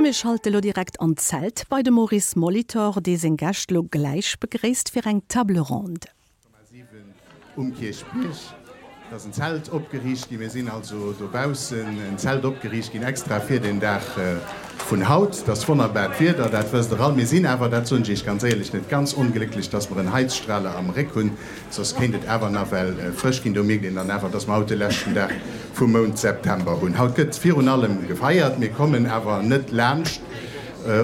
A mir schalte lo direkt an d'Zelt bei de Maurice Molitor, dee seng Gäscht lo gläich begréisst fir eng Table ronde. Um Kierchbierg ass en Zelt opgeriicht ginn. Mir sinn also dobaussen en Zelt opgeriicht ginn, extra fir den Dag vun haut. Et ass wonnerbart Wieder, dat wësst Der all. Mir sinn awer, dat soen ech Iech ganz éierlech, net ganz onglécklech, dass mer en Heizstrahler am Réck hunn, soss kéint et awer nawell frësch ginn. Do mierkt een dann awer, dass mer haut de leschten Dag vum Mount September hunn. Haut gëtt virun allem gefeiert. Mir kommen awer net laanscht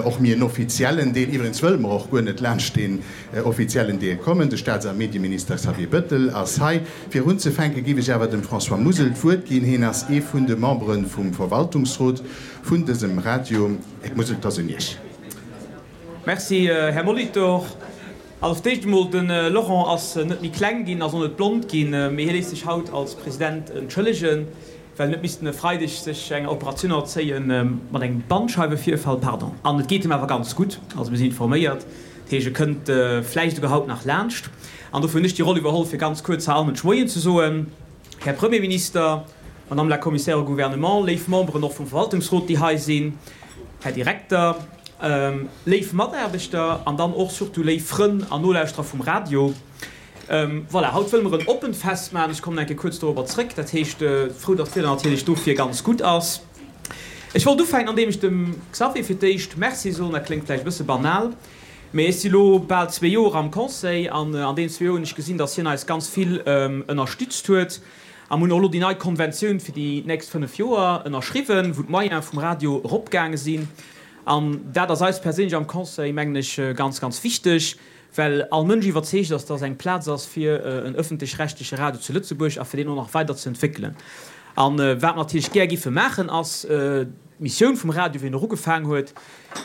och méi en offiziellen Deel. Iwwregens wëlle mer och guer net laanscht deen Offiziellen Deel kommen. De Staats a Medieminister Xavier Bëttel ass hei. Fir unzefänke giff ech awer dem François Musel d'Wuert ginn. Heen ass ee vun de Membere vum Verwaltungsrot vun dësem Radio. Här Musel, 't ass un Iech. Merci, Här Molitor. Also fir d'éischt emol, de Laurent ass net méi kleng ginn, ass och net blond ginn, mee hie léisst sech haut als President entschëllegen, well en huet missten e Freideg sech enger Operatioun ënnerzéien, mat engem Bandscheiwevirfall, pardon. An et geet him awer ganz gutt, also mir sinn informéiert. Dat heescht, e kënnt vläicht esouguer haut nach laanscht. An dofir hunn ech déi Roll iwwerholl, fir ganz kuerz hei allen Moien ze soen. Här Premierminister, Madame la Commissaire au Gouvernement, léif Memberen och vum Verwaltungsrot, déi hei sinn, Här Direkter, léif Mataarbechter an dann och surtout léif Frënn an Nolauschterer vum Radio. Voilà, haut wëlle mer en oppent Fest maachen. Ech kommen eng Kéier kuerz dorobber zrëck. Dat heescht, frou, datt d'Wieder natierlech dofir ganz gutt ass. Ech wollt ufänken, andeem ech dem Xavier fir d'éischt Merci soen. Dat kléngt vläicht e bësse banal, mee ech si lo bal zwee Joer am Conseil an an deenen zwee Joer hunn ech gesinn, datt hien eis ganz vill ënnerstützt huet. A mir hunn och elo déi nei Konventioun fir déi nächst 5 Joer ënnerschriwwen, wou d'Moyene vum Radio eropgaange sinn. An dat ass eis perséinlech am Conseil, mengen ech, ganz, ganz wichteg, Well all Mënsch iwwerzeegt ass, dass eng Plaz ass fir en öffentlech-rechtleche Radio zu Lëtzebuerg a fir deen och nach weider ze entwéckelen. A wat mer natierlech gär giffe maachen, ass d'Missioun vum Radio, wéi en och ugefaang huet,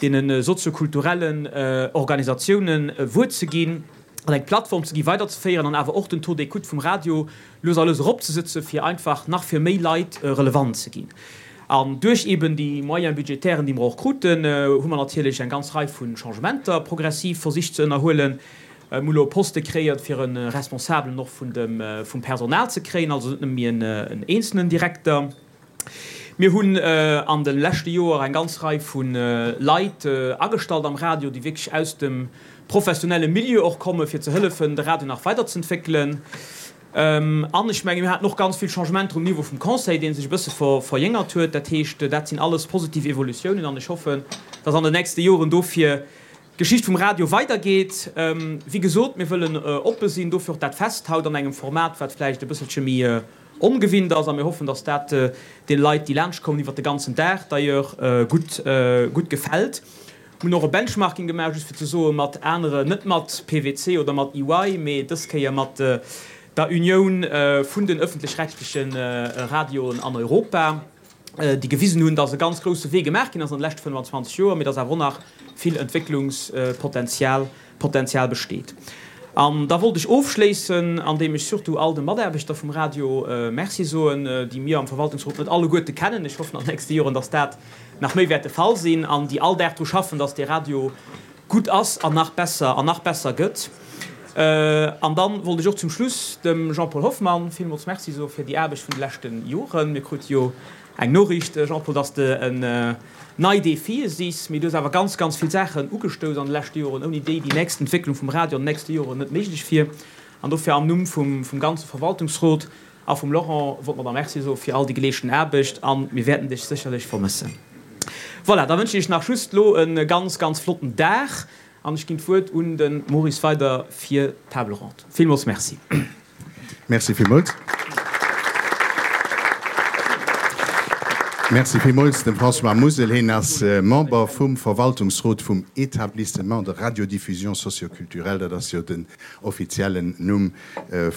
deene soziokulturellen Organisatiounen e Wuert ze ginn an eng Plattform ze ginn, weiderzeféieren an awer och den Taux d'écoute vum Radio lues a lues eropzesëtzen, fir einfach nach fir méi Leit relevant ze ginn. An duerch eben déi Moyens budgétairen, déi mer och kruten, hu mer natierlech eng ganz Rei vu Changementer progressiv versicht ze ënnerhuelen. Mir hu lo e Poste kreéiert, fir e Responsabelen och vun dem, vum Personal ze kréien, also net nëmme méi en eenzelnen Direkter. Mir hunn an de leschte Joer eng ganz Rei vu Leit agestallt am Radio, déi wierklech aus dem professionelle Milieu och kommen, fir ze hëllefen, de Radio nach weiderzëntwéckelen. An ech mengen, mir haten och ganz vill Changementer um Niveau vum Conseil, dee sech e bësse verjéngert huet. Dat heescht, dat sinn alles positiv Evolutiounen an ech hoffen, dass an den nächste Joren dofir d'Geschicht vum Radio weidergeet. Wéi gesot, mir wëllen oppe sinn, dofir och dat Fest haut an engem Format, wat vläicht e bësselche méi ongewinnt ass. A mir hoffen, dass dat deene Leit, déi laanschtkommen, iwwert de ganzen Dag d'ailleurs, gutt, gutt gefält. Mir hunn och e Benchmarking gemaach, just fir ze soen, mat anere, net mat PwC oder mat EY, mee dës Kéier mat der Unioun vun den öffentlech-rechtleche Radioen an Europa, déi gewisen hunn, dass e ganz grousse Wee gemaach ginn ass an de leschte 25 Joer, mee dass awer och nach vill Entwécklungspotenzial Potenzial besteet. An da wollt ech ofschléissen, andeem ech surtout all de Mataarbechter vum Radio Merci soen, déi mir am Verwaltungsrot net alleguerte kennen. Ech hoffen an den nächste Joren, dass dat nach méi wäert de Fall sinn, an déi all Dag dru schaffen, dass dee Radio gutt ass an nach besser an nach besser gëtt. An dann wollt ech och zum Schluss dem Jean-Paul Hoffmann villmools Merci soe fir déi Aarbecht vun de leschte Joren. Mir krute jo eng Noriicht, Jean-Paul, dass de en nei Defie sichs, mee du hues awer ganz, ganz vill Saachen ugestouss an de leschte Joren, ouni déi déi nächst Entwécklung vum Radio an den nächste Joren net méiglech wier. An dofir am Numm vum ganze Verwaltungsrot a vum Laurent wollt mer der Merci soe fir all déi geleeschten Aarbecht a mir wäerten dech sécherlech vermëssen. Voilà, da wënschen ech iech nach just elo e ganz, ganz flotten Dag an ech ginn d'Wuert un de Maurice weider fir d'Table ronde. Villmools Merci. Merci villmools. Merci villmools dem François Musel. Hien ass Member vum Verwaltungsrot vum Établissement de radiodiffusion socioculturelle, dat ass jo den offiziellen Numm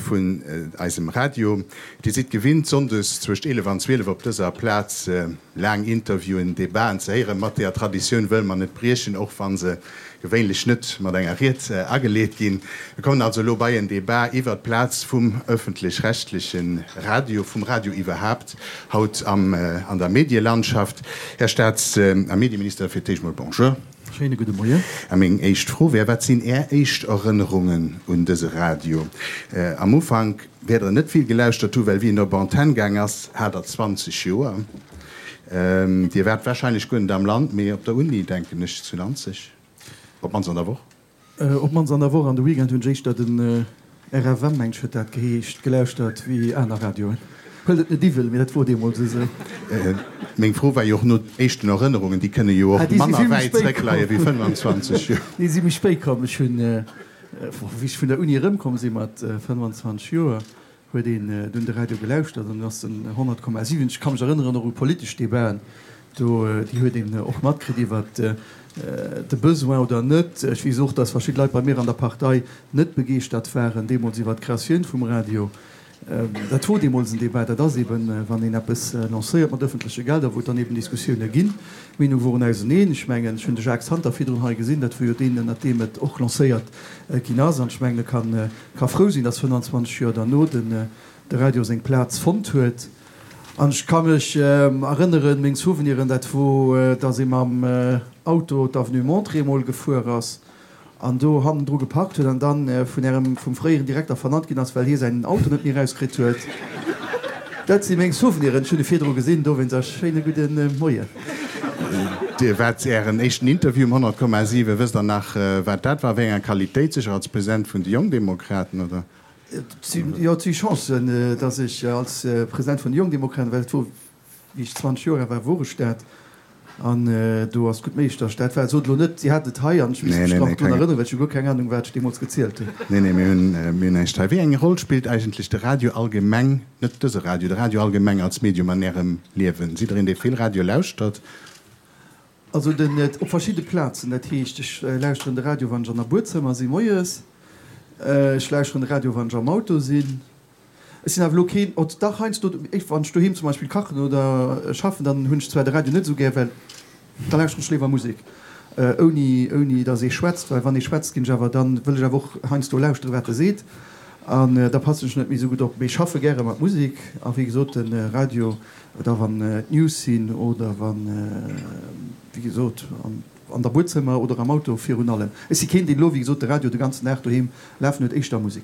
vun eisem Radio. Dir sidd gewinnt, sonndes zwëscht 11 an 12 op dëser Plaz laang Interviewen, Debaten ze héieren. Mat deeër Traditioun wëlle mer net briechen, och wa se gewéinlech net mat enger Ried ageleet ginn. Mir kommen also elo bei en Debat iwwert d'Plaz vum öffentlech-rechtleche Radio, vum Radio iwwerhaapt haut am, an der Medielandschaft. Här Staats a Medieminister, fir d'éischt mol Bonjour. Schéine gudde Moien. A meng éischt Fro wär, Wat sinn Är éischt Erënnerungen un dëse Radio? Am Ufank wäert Der net vill gelauschtert hu well wéi en op Antenn gaang ass, hat Der 20 Joer. Dir waart warscheinlech guer net am Land, mee op der Uni, denken ech, zu Nanzeg, op d'mannst an der Woch. Op d'mannst an der Woch. An de Weekend hunn ech éischter den RFM, mengt ech huet dat geheescht, gelauschtert wéi aner Radioen. Huelt et net iwwel, mee dat wor deemools esou. Meng Fro war jo och no éischten Erënnerungen, déi kënne jo och manner wäit zréckleie wéi 25 Joer. Déi si méi spéit komm. Ech hunn, wéi ech vun der Uni erëmkomm si mat 25 Joer, huet een dunn de Radio gelauschtert an ass den 100,7, ech ka mech erënneren och u politesch Debaten do, déi huet een och matkritt iwwert de Besoin oder net. Ech weess och, datt verschidde Leit bei mir an der Partei net begeeschtert waren deemools iwwert d'Creatioun vum Radio. Dat wor deemools en Debat. Dat ass eben, wann een eppes lancéiert mat ëffentleche Gelder, wou et dann eben Diskussioune ginn. D'Meenunge woren auseneen. Ech mengen, ech hunn de Jacques Santer virdrun hei gesinn, dat wor jo deen, ënnert deem et och lancéiert ginn ass. An ech mengen, e kann Ka frou sinn, dass 25 Joer derno den de Radio seng Plaz fonnt huet. An ech ka mech erënneren, meng Souveniren, dat wor, dass ee mam Auto d'Avenue Monterey emol gefuer ass an do hannendru geparkt huet an dann vun ärem, vum fréieren Direkter vernannt ginn ass, well hie säin Auto net méi erauskritt huet. Dat si meng Souveniren. Ech hunn e virdru gesinn, dowéinst a schéine gudde Moien. Dir waart Ären éischten Interview um 100,7. Wësst Der nach, wat dat war, wéi enger Qualitéit? Sécher als President vun de Jongdemokraten, oder? Jo, et si Chancen, datt ech als President vun de Jongdemokraten, well et wor, wéi ech 20 Joer al war, wor ech dat. An do ass et gutt méiglech, datt ech dat war. Sot elo net, Dir hat et hei an ech misst mech nach drun erënneren, well ech hu guer keng Anung, wat ech deemools gezielt hunn. Nee, nee, mir hunn, mir hunn näischt hei. Wéi eng Roll spillt eigentlech de Radio allgemeng, net dëse Radio, de Radio allgemeng als Medium an Ärem Liewen? Sidd Der een, dee vill Radio lauschtert? Also den, op verschidde Plazen. Dat heescht, ech lauschteren de Radio, wann ech an der Buedzëmmer si moies. Ech lauschteren de Radio, wann ech am Auto sinn. Ech sinn awer elo keen, oh dach heiansdo, wann ech doheem zum Beispill kachen oder schaffen, dann hunn ech zwar de Radio net esou gär, well da lauschteren ech léiwer Musek, ouni ouni datt ee schwätzt, well wann ee schwätzt, ginn ech awer, dann wëll ech awer och heiansdo lauschteren, wat e seet, an da passen ech net méi esou gutt op. Mee ech schaffe gäre mat Musek a wéi gesot de Radio, da wann d'News sinn oder wann, wéi gesot, an. An der Buedzëmmer oder am Auto virun allem. Ech si keen, deen elo, wéi gesot, de Radio de ganzen Dag doheem lafen huet, éischter Musek.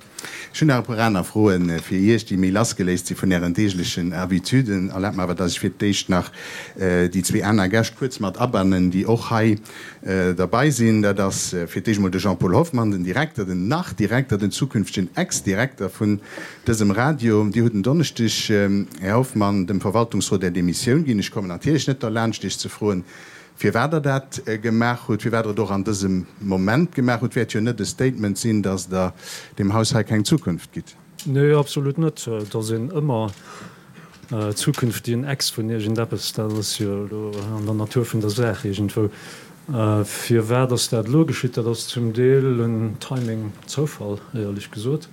Ech hunn nach e puer aner Froe fir Iech, déi méi lassgeléist si vun Ären deeglechen Habituden. Erlaabt mer awer, dass ech fir d'éischt nach déi zwee aner Gäscht kuerz mat abannen, déi och hei derbei sinn. Dat ass fir d'éischt emol de Jean-Paul Hoffmann, den Direkter, den Nach-Direkter, den zukünftegen Ex-Direkter vun dësem Radio. Dir hutt en Donneschdeg, Här Hoffmann, dem Verwaltungsrot Är Demissioun ginn. Ech kommen natierlech net derlaanscht, Iech ze froen, Firwat Der dat gemaach hutt, firwat Der et och an dësem Moment gemaach hutt, wäert jo net e Statement sinn, datt Der deem Haus hei keng Zukunft gitt. Nee, absolut net. Et ass een ëmmer zukünftigen Ex vun iergendeppes. Dat ass jo elo an der Natur vun der Saach iergendwou. Firwat ass dat elo geschitt? Dat ass zum Deel en Timing-Zoufall, éierlech gesot.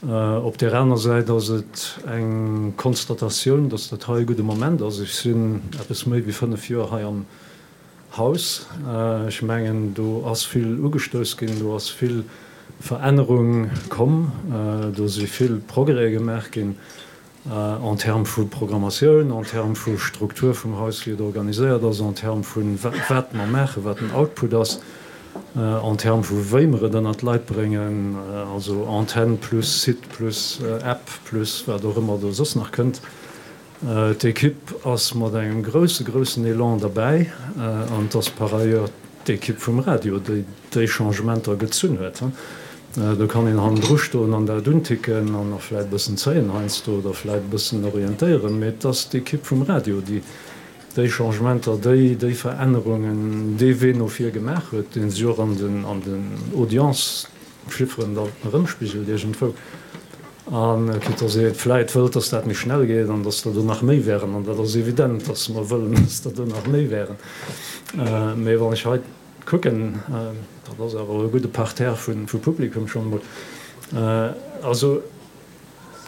Op där aner Säit ass et eng Konstatatioun, dass dat hei e gudde Moment ass. Ech sinn eppes méi wéi 5 Joer hei am Haus. Ech mengen, do ass vill ugestouss ginn, do ass vill Verännerung komm, do si vill Progrèse gemaach ginn. En termes vu Programmatioun, en termes vu Struktur vum Haus, wéi et organiséiert ass, en termes vu wat mer maachen, wat den Output ass, en termes vu wéi mer et ënnert d'Leit bréngen, also Antenn plus Site plus App plus wat och ëmmer do soss nach kënnt. D'Ekipp ass mat engem grousse, groussen Elan derbäi an et ass par ailleurs d'Ekipp vum Radio, déi déi Changementer gezunn huet. Do kann een hannendru stoen an dat unticken an och vläit e bëssen zéien heiansdo oder vläit e bëssen orientéieren, mee et ass d'Ekipp vum Radio, déi déi Changementer, déi déi Verännerungen, dee Wee no vir gemaach huet, dee sech och an den an den Audience-Chifferen da erëmspigelt iergendwou. A quitte dass ee vläit wëllt, dass dat méi schnell geet an dass der do nach méi wären, an dat ass evident, dass mer wëllen, dass der do nach méi wären, mee wann ech hei Kucken, dat ass awer e gudde Parterre vu Publikum schonn emol. Also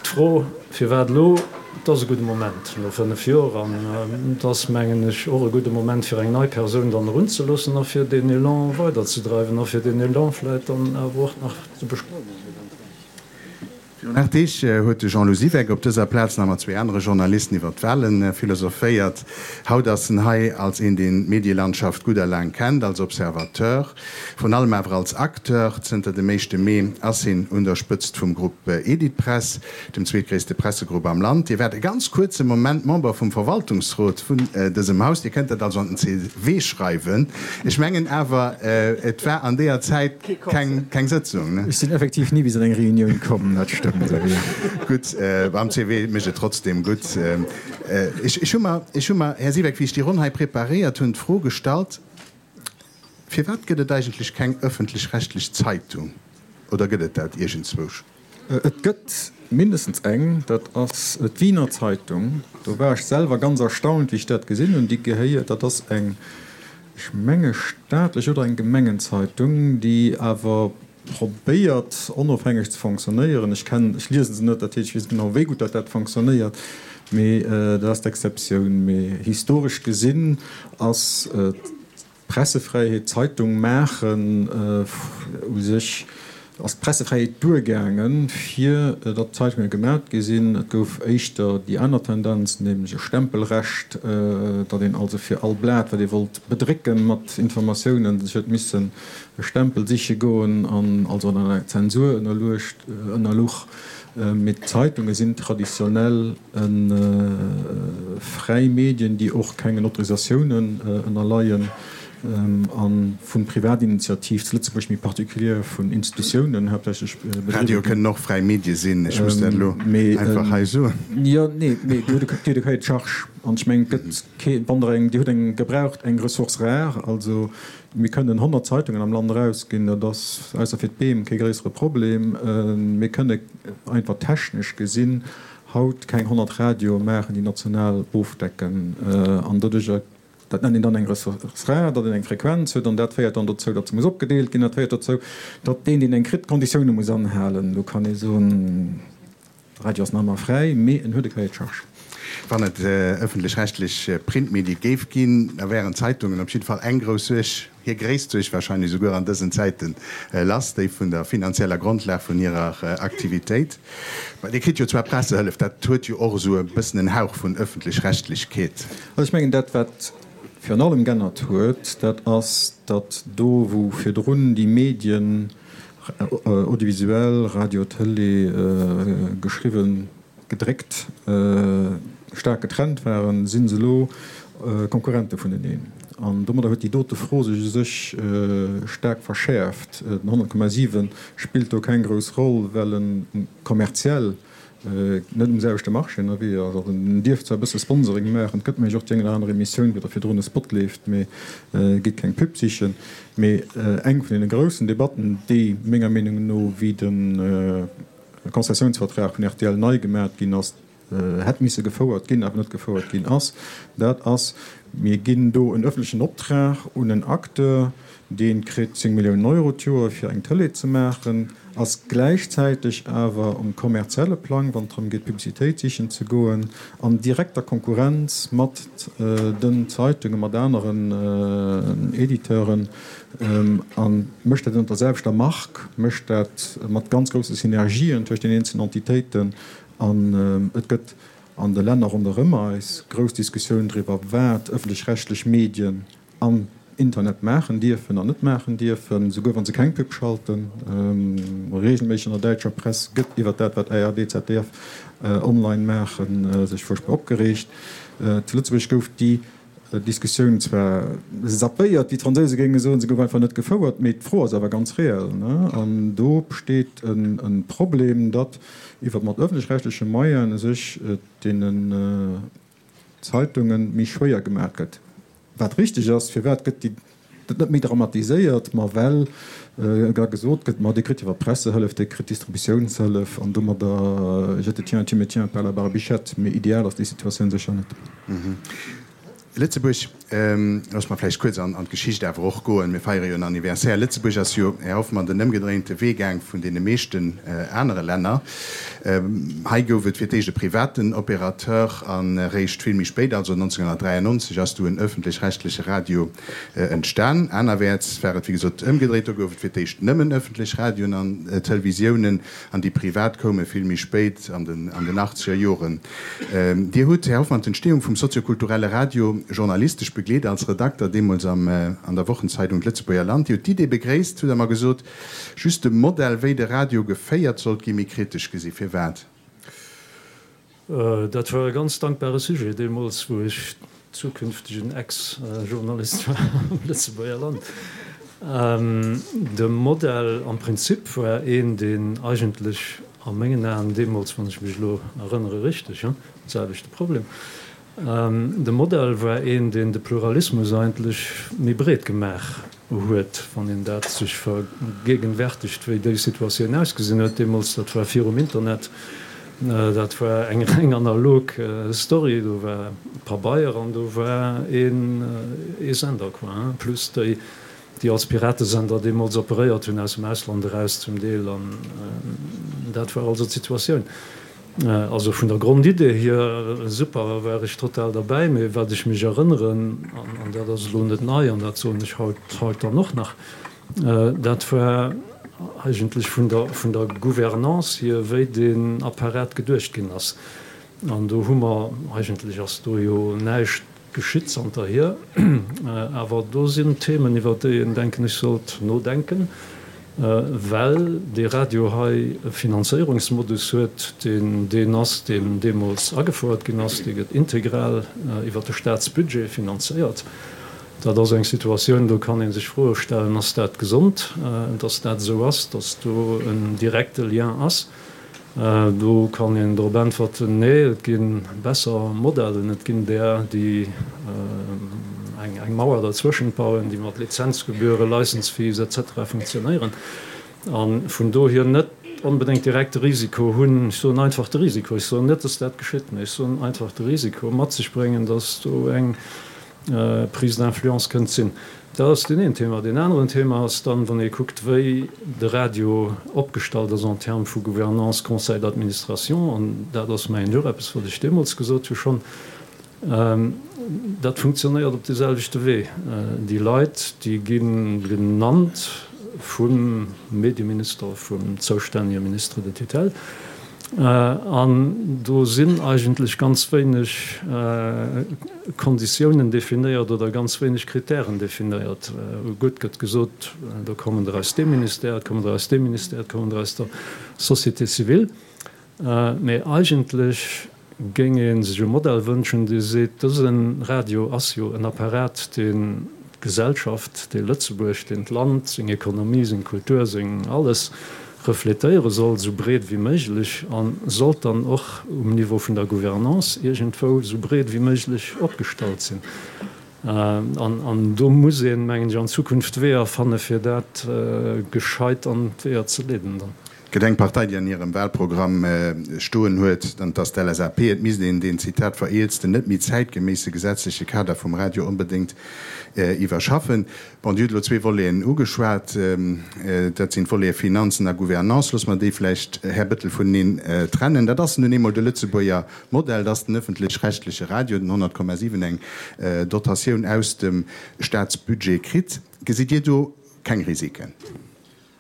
d'Fro, firwat elo? Et ass e gudde Moment no 5 Joer an et ass, mengen ech, och e gudde Moment, fir eng nei Persoun dann erunzeloossen a fir deen Elan weiderzedreiwen a fir deen Elan vläicht dann awer och nach ze beschleunegen eventuell. Virun 8 Deeg huet de Jean-Lou Siweck op dëser Plaz nach mat zwee anere Journalisten iwwer d'Wale philosophéiert. Haut ass en hei als een, deen d'Medielandschaft gutt a laang kennt, als Observateur, vrun allem awer als Acteur. Zënter dem éischte Mee ass hien un der Spëtzt vum Grupp Editpress, dem zweetgréisste Pressegrupp am Land. Dir waart e ganz kuerze Moment Member vum Verwaltungsrot vun dësem Haus. Dir kënnt dat also an den CV schreiwen. Ech mengen awer, et war an deeër Zäit keng Sëtzung, ne? Ech sinn effektiv ni bis an eng Reunioun komm, dat stëmmt. Gutt, am CV mécht et trotzdem gutt. Ech hu mer, ech hu mer, Här Siweck, wéi ech déi Ronn hei preparéiert hunn, d'Fro gestallt, Firwat gëtt et eigentlech keng ëffentlech-rechtlech Zeitung? Oder gëtt et dat iergendzwousch? Et gëtt mindestens eng, dat ass d'Wiener Zeitung. Do war ech selwer ganz erstaunt, wéi ech dat gesinn hunn. Déi gehéiert, dat ass eng, ech menge staatlech oder eng Gemengenzeitung, déi awer probéiert onofhängeg ze fonctionnéieren. Ech kennen, ech liese se net, dat heescht, ech weess net genau, wéi gutt dat dat fonctionnéiert, mee dat ass d'Exceptioun. Mee historesch gesinn ass Pressefräiheet, Zeitung maachen, u sech ass d'Pressefräiheet duergaangen, fir datt Zeitunge gemat gi sinn. Et gouf éischter déi aner Tendenz, nämlech e Stempelrecht, datt een also fir all Blat, wat ee wollt bedrécken mat Informatiounen, sech huet missen e Stempel siche goen an also an enger Zensur ënnerluecht, ënnerluch. Mee d'Zeitunge sinn traditionell Fräi Medien, déi och kengen Autorisatiounen ënnerleien a vu Privatinitiativ, zu Lëtzebuerg méi particulier vun Institutiounen haaptsächlech bedriwwe ginn. Radioe kënnen och fräi Medie sinn, ech muss dat elo einfach hei soen. Jo, nee, mee Dir hutt e Cahier de charges an ech mengen, et gëtt kee, wann Der eng, Dir hutt eng gebraucht, eng Ressource rare, also mir kënnen 100 Zeitungen am Land erausginn, dat ass, ausser fir d'Beem, kee gréissere Problem. Mir kënne einfach technesch gesinn haut keng 100 Radioe maachen, déi national ofdecken an doduercher, dat nennt een dann eng Ressource rare, datt een eng Frequenz huet an dat féiert dann dozou, datt se muss opgedeelt ginn, dat féiert dozou, datt deen, deen eng kritt, d'Konditioune muss anhalen. Do kann ee soen, de Radio ass nach ëmmer fräi, mee en huet e Cahier de charges. Wann et ëffentlech-rechtlech Printmedie géif ginn, da wären d'Zeitungen op jidde Fall eng grouss Suerg Hir gréisst Suerg wahrscheinlech esouguer an dësen Zäiten lass, déi vun der finanzieller Grondlag vun hirer Aktivitéit. Mä Dir kritt jo zwar Pressehëllef, dat huet jo och esou e bëssen en Hauch vun Ëffentlech-Rechtlechkeet. Also ech mengen, dat wat virun allem g'ännert huet, dat ass, datt do wou virdrun déi Medien, audiovisuell, Radio, Tëlee, geschriwwen, gedréckt, staark getrennt waren, si se elo Konkurrente vuneneen. An domadder huet déi dote Fro sech u sech staark verschäerft. Den 100,7 spillt do keng grouss Roll, well en kommerziell net um selwechte Marché ënnerwee ass. Also en dierf zwar e bësse Sponsoring maachen, et gëtt mengen ech och déi eng oder aner Emissioun, wou da virdrun e Spot leeft, mee gitt keng Pub sichen. Mee eng vun deene groussen Debatten, déi menger Meenung no wéi de Konzessiounsvertrag vun rtl nei gemat ginn ass, hätt misse gefouert ginn, awer net gefouert ginn ass, dat ass, mir ginn do en öffentlechen Optrag un en Acteur, dee kritt 10 Milliounen Euro d'Joer fir eng Tëlee ze maachen, ass gläichzäiteg awer um kommerzielle Plang, wann et drëm geet Publicitéit sichen ze goen, an direkter Konkurrenz mat den Zeitungen, mat aneren Editeuren. A mécht dat ënnert der selwechter Mark, mécht dat mat ganz grousse Synergien tëscht den eenzelnen Entitéiten. An et gëtt an de Länner ronderëm eis grouss Diskussioun driwwer, wat ëffentlech-rechtlech Medien am Internet maachen dierfen an net maachen dierfen, souguer wa se keng Pub schalten. Reegelméisseg an der däitscher Press gëtt iwwer dat, wat ARD, ZDF online maachen, sech fuerchtbar opgereegt. Zu Lëtzebuerg gouf déi Diskussioun zwar zappéiert, wéi d'Fransouse géinge soen, se gouf einfach net gefouert, mee d'Fro ass awer ganz reell. An do besteet e Problem, datt iwwer mat ëffentlech-rechtleche Moyene sech et deenen Zeitunge méi schwéier gemaach gëtt. Wat richteg ass, firwat gëtt déi dat net méi dramatiséiert, ma well da gesot gëtt, ma dir kritt iwwer d'Pressehëllef, dir kritt d'Distributiounshëllef an domadder je te tiens, tu me tiens par la barbichette. Mee ideal ass déi Situatioun sécher net. Lëtzebuerg. Loosse mer vläicht kuerz an d'Geschicht awer och goen. Mir feiere jo en Anniversaire. Lëtzebuerg ass jo, Här Hoffmann, den ëmgedréinte Wee gaang vun deene meeschten anere Länner. Hei gouf et fir d'éischt e privaten Opérateur an eréischt vill méi spéit, also 1993, ass du en ëffentlech-rechtleche Radio entstan. Anerwäerts war et, wéi gesot, ëmgedréit. Do gouf et fir d'éischt nëmmen ëffentlech Radioen an Televisiounen an déi privat koume vill méi spéit, an den achtzeger Joren. Dir hutt, Här Hoffmann, d'Entstehung vum soziokulturelle Radio journalistesch begleet, als Redakter deemools am an der Wochenzeidung D'Lëtzebuerger Land. Dir hutt d'Idee begréisst, hutt Der mer gesot, just de Modell, wéi de Radio geféiert sollt ginn, méi kritesch gesi. Firwat? Dat war e ganz dankbare Sujet deemools, wou ech zukünftegen Ex-Journalist war am Lëtzebuerger Land. De Modell am Prinzip war een, deen eigentlech a mengen Aen deemools, wann ech mech elo erënnere richteg, hu selwechte Problem, de Modell war een, deen de Pluralismus eigentlech méi breet gemaach huet, wann een dat sech vergegenwärtigt, wéi déi Situatioun ausgesinn huet deemools, dat war virum Internet, dat war eng reng analog Story, do war Pabeier an do war een ee Sender, quoi, hein, plus déi, déi als Piratesender deemools operéiert hunn, aus dem Ausland eraus zum Deel, an dat war also d'Situatioun. Also vun der Grondidee hier super, war ech total derbäi. Mee wat ech mech erënneren, an dat ass elo net nei an dat soen ech haut haut dann och nach, dat war eigentlech vun der vun der Gouvernance hier, wéi deen Apparat geduecht ginn ass. An do hu mer, eigentlech ass do jo näischt Geschitt zanterhier. Awer do sinn Themen, iwwer déi een, denken ech, sollt nodenken, well dee Radio hei e Finanzéierungsmodus huet, deen deen ass, deen deemools agefouert ginn ass. Dee gëtt integral iwwer de Staatsbudget finanzéiert. Dat ass eng Situatioun, do kann ee sech Froe stellen, Ass dat gesond, dass dat esou ass, dass do en direkte Lien ass? Do kann een drop äntwerten, Nee, et gi besser Modellen. Et ginn där, déi eng Mauer derzwëschent bauen, déi mat Lizenzgebühren, License fees etc. Funktionéieren a vun dohier net onbedéngt direkt de Risiko hunn, ech soen einfach de Risiko, ech soen net, dass dat geschitt, mä ech soen einfach de Risiko mat sech bréngen, dass do eng Prise d'influence kënnt sinn. Dat ass deen een Thema. Deen aneren Thema ass dann, wann ee kuckt, wéi de Radio opgestallt ass en termes vu Gouvernance, Conseil d'administration, an dat ass mengen ech och eppes, wat ech deemools gesot hu schonn, dat funktionéiert op deeselwechte Wee. Déi Leit, déi gi genannt vum Medieminister, vum zoustännege Ministre de tutelle, An do sinn eigentlech ganz wéineg Konditiounen definéiert oder ganz wéineg Kritären definéiert. Gutt gëtt gesot, do kommen der aus deem Ministère, et kommen der aus deem Ministère, et kommen der aus der Société civile. Mee eigentlech géing ee sech e Modell wënschen, dee seet, dëse Radio ass jo en Apparat, deen d'Gesellschaft, dee Lëtzebuerg, deen d'Land, seng Ekonomie, seng Kultur, seng alles refletéiere soll, esou breet wéi méiglech, a sollt dann och um Niveau vun der Gouvernance iergendwou esou breet wéi méiglech opgestallt sinn. An do muss een, mengen ech, an Zukunft Weeër fanne fir dat gescheit an d'Weeër ze leeden dann. Et gëtt eng Partei, déi an hirem Wahlprogramm stoen huet, an et ass d'LSAP, et misst een deen, Zitat, vereelzten, net méi zäitgeméisse gesetzleche Kader vum Radio onbedéngt iwwerschaffen. Bon, Dir hutt elo zwee Voleten ugeschwat, dat sinn d'Volete Finanzen a Gouvernance. Loosse mer déi vläicht, Här Bettel, vuneneen trennen. Dat ass nun eemol de Lëtzebuerger Modell, dass den öffentlech-rechtliche Radio, den 100,7, eng Dotatioun aus dem Staatsbudget kritt. Gesitt Dir do keng Risiken?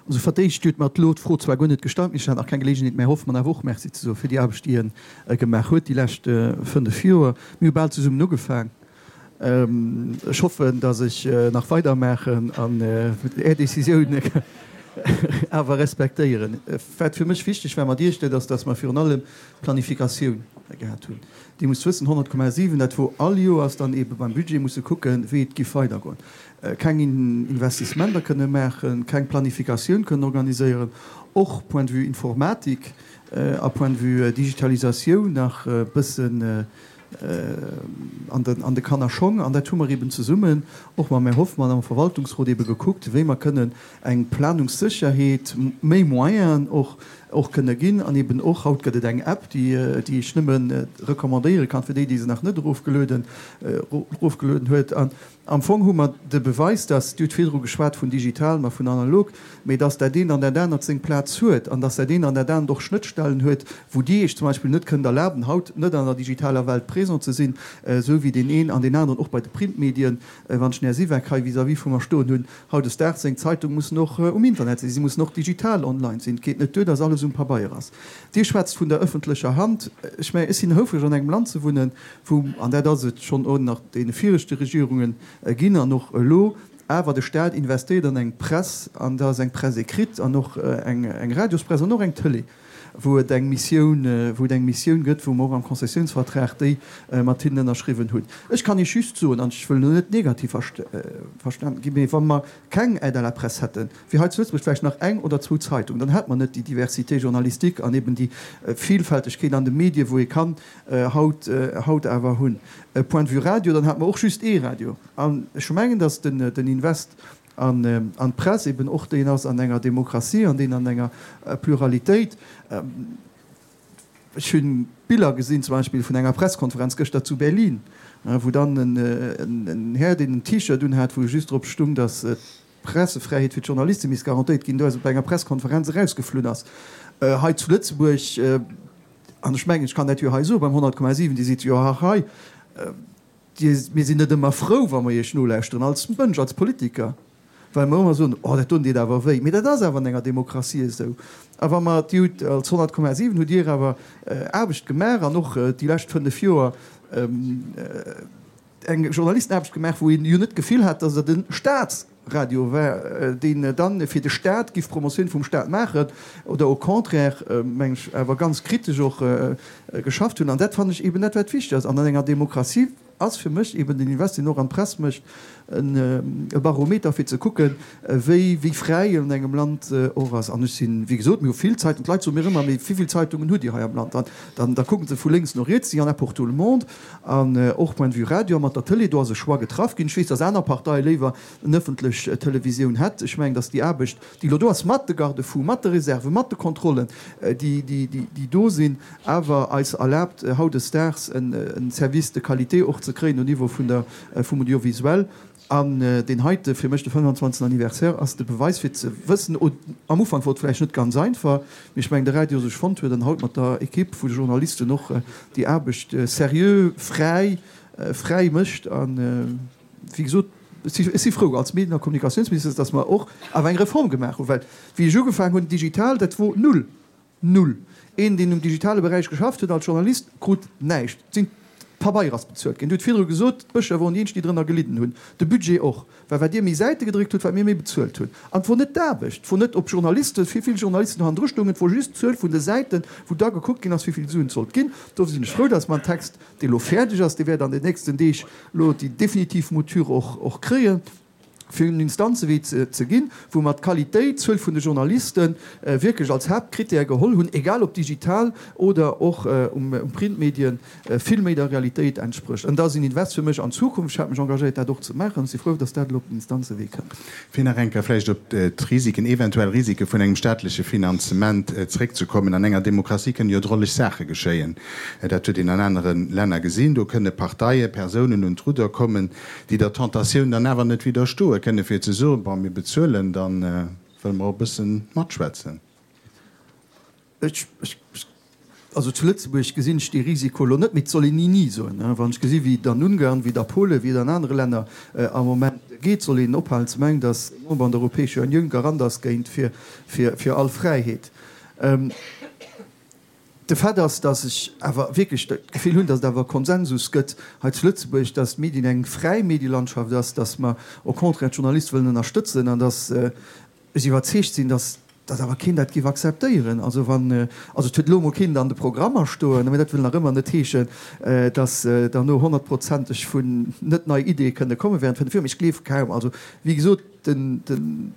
Also fir d'éischt, Dir hutt mer elo d'Fro zwar guer net gestallt, mee ech hat nach keng Geleegenheet, mä Hoffmann awer och Merci ze soe fir déi Aarbecht, déi e gemaach huet déi lescht fënnef Joer. Mir hu bal zesummen ugefaang. Ech hoffen, datt ech nach weidermaachen an Är Décisioun awer respektéieren. Wat fir mech wichteg war mat Iech, dat ass, datt mer virun allem d'Planifikatioun gehat hunn. Dir musst wëssen, 100,7, dat wor all Joers dann eebe beim Budget musse kucken, wéi et giff weidergoen. Keng Investissementer kënne maachen, keng Planifikatioun kënnen organiséieren, och point de vue Informatik a point de vue Digitalisatioun nach e bëssen an de Kannerschong. An dat hu mer eeben zesummen och mam Här Hoffmann am Verwaltungsrot eebe gekuckt, wéi mer kënnen eng Planungssécherheet, méi Moyenen och. och kënne ginn. An eben och, haut gëtt et eng App, déi ech nëmme recommandéiere kann, fir déi, déi se nach net erofgelueden huet. An am Fong hu mer de Beweis, dass, Dir hutt virdru geschwat vun digital, ma vun analog, mee dass dat eent an dat anert seng Plaz huet an dass dat eent an dat anert och Schnëttstellen huet, wou Dir Iech zum Beispill net kënnt erlaben, haut net an der digitaler Welt présent ze sinn, esou wéi deen een an deen aneren och bei de Printmedien, wann ech den Här Siweck hei vis-à-vis vu mer stoen hunn, hautdesdaags seng Zeitung mussen och um Internet sinn, si mussen och digital online sinn. Et geet net duer, dass alles um Pabeier ass. Dir schwätzt vun der ëffentlecher Hand. Ech mengen, ech sinn houfreg an engem Land ze wunnen, wou, an dat ass et schonn och nach deene viregte Regierungen ginn an och elo, awer de Staat investéiert an eng Press, an dat ass eng Presse écrite an och eng Radiospress an och eng Tëlee, wou et eng Missioun, wou et eng Missioun gëtt, wou mer och am Konzessiounsvertrag déi mat hinnen ënnerschriwwen hunn. Ech kann Iech just soen, an ech wëll elo net negativ verstanen ginn, mee wa mer keng Aide à la presse hätten, wier hei zu Lëtzebuerg vläicht nach eng oder zwou Zeitungen, dann hätt mer net déi Diversité journalistique an eben déi Vielfältegkeet an de Medien, wou ee kann haut, haut awer hunn. Point de vue Radio, dann hätt mer och just ee Radio. An ech mengen, datt den Invest an d'Press eben och deen ass an enger Demokratie an deen an enger Pluralitéit. Ech hu Biller gesinn, zum Beispill vun enger Presskonferenz gëschter zu Berlin, wou dann en Här, deen en T-Shirt unhat, wou just drop stung, datt d'Pressefräiheet fir d'Journaliste misst garantéiert ginn, do aus op enger Presskonferenz erausgeflunn ass. Hei zu Lëtzebuerg, an ech mengen, ech kann dat jo hei soen, beim 100,7, Dir sidd jo och hei, Dir, mir sinn net ëmmer frou, wa mer Iech nolauschteren, als Mënsch, als Politiker, well mer ëmmer soen, Oh, dat doen deet awer wéi. Mee dat ass awer an enger Demokratie esou. A wa mer, Dir hutt als 100,7 hutt Dir awer Aarbecht gemaach an och déi lescht 5 Joer eng Journalistenaarbecht gemaach, wou een jo net d'Gefill hat, datt et e Staats. Radio war, deen dann fir de Staat giff Promotioun vum Staat maachen oder au contraire, meng ech, awer ganz kritesch och geschafft hunn. An dat fannen ech eben dat, wat wichteg ass. An an enger Demokratie ass fir mech eben den Invest, deen och an d'Press mécht, e Barometer fir ze kucken, wéi wéi fräi an engem Land och ass. An ech sinn, wéi gesot, mir hu vill Zeitungen, d'Leit soe mir ëmmer, mee wéi vill Zeitungen hutt Dir hei am Land? An dann da kucke se vu lénks no riets, il y en a pour tout le monde. An och point de vue Radio a mat der Tëlee, do ass e Choix getraff ginn. Ech weess, datt aner Parteie léiwer en ëffentlech Televisioun hätt. Ech mengen, datt déi Aarbecht, déi elo do ass, mat de Garde-fous, mat de Reserven, mat de Kontrollen, déi, déi do sinn, awer eis erlaabt, hautdesdaags en Service de qualité och ze kréien au Niveau vun der, vum Audiovisuel. An deen heite, fir mech de 25. Anniversaire, ass de Beweis fir ze wëssen, am Ufank wor et vläicht net ganz einfach, mee ech mengen de Radio sech fonnt huet an haut mat der Equipe vu de Journalisten och déi Aarbecht seriö, fräi, fräi mécht. A wéi gesot, ech si frou als Medien a Kommunikatiounsminister, datt mer och awer eng Reform gemaach hunn, well wéi ech ugefaangen hunn, digital, dat wor null. Null. Een, deen um digitale Beräich geschafft huet als Journalist, krut näischt. Et sinn d'Pabeier ass bezuelt ginn. Dir hutt virdru gesot, d'Bëscher woren déi eenzeg, déi drënner gelidden hunn. De Budget och. Well wat Dir méi Säite gedréckt hutt, wat mir méi bezuelt hunn. An et wor net d'Aarbecht, et wor net, ob Journalisten, wéi vill Journalisten do hannendru stoungen, et wor just d'Zuel vun de Säiten, wou da gekuckt ginn ass, wéi vill Suen et sollt ginn. Dofir sinn ech frou, dass mer en Text, dee lo fäerdeg ass, dee wäert an den nächsten Deeg lo déi definitiv Mouture och kréien, fir un den Instanzewee ze ginn, wou mer d'Qualitéit, d'Zuel vun de Journalisten wierklech als Haaptkrittär geholl hunn, egal ob digital oder och um Printmedien, vill méi der Realitéit entsprécht. An dat ass en Invest fir mech an d'Zukunft. Ech hat mech engagéiert, dat och ze maachen. Ech si frou, dass dat elo op den Instanzewee kënnt. Fir nach eng Kéier vläicht op d'Risiken, eventuell Risike vun engem staatleche Finanzement zréckzekommen, An enger Demokratie kënnen jo drolleg Saache geschéien. Dat huet een an anere Länner gesinn. Do kënne Parteien, Persounen un d'Rudder kommen, déi der Tentatioun dann awer net widderstoe kënne fir ze soen, bon, mir bezuelen, da wëlle mer och e bësse matschwätzen. Ech, also zu Lëtzebuerg gesinn ech dee Risiko elo net, mee et soll een ni ni soen. Wann ech gesi wéi et an Ungarn, wéi et a Polen, wéi et an anere Länner am Moment geet, soll een ophalen ze mengen, datt e Member an der Europäescher Unioun Garant ass géint fir all Fräiheet. De Fait ass, datt ech awer wierklech d'Gefill hunn, datt et awer e Konsensus gëtt hei zu Lëtzebuerg, datt d'Medien eng fräi Medielandschaft ass, datt mer au contraire d'Journaliste wëllen ënnerstëtzen an datt ech iwwerzeegt sinn, datt datt awer keen dat géif akzeptéieren. Also wann, also et huet elo emol keen et an de Programmer stoen, mä dat wëll nach ëmmer net heeschen, datt derno honnertprozenteg vun net nei Ideeë kënne komme während 5 Joer. Mee ech gleef kaum. Also wéi gesot, den, den.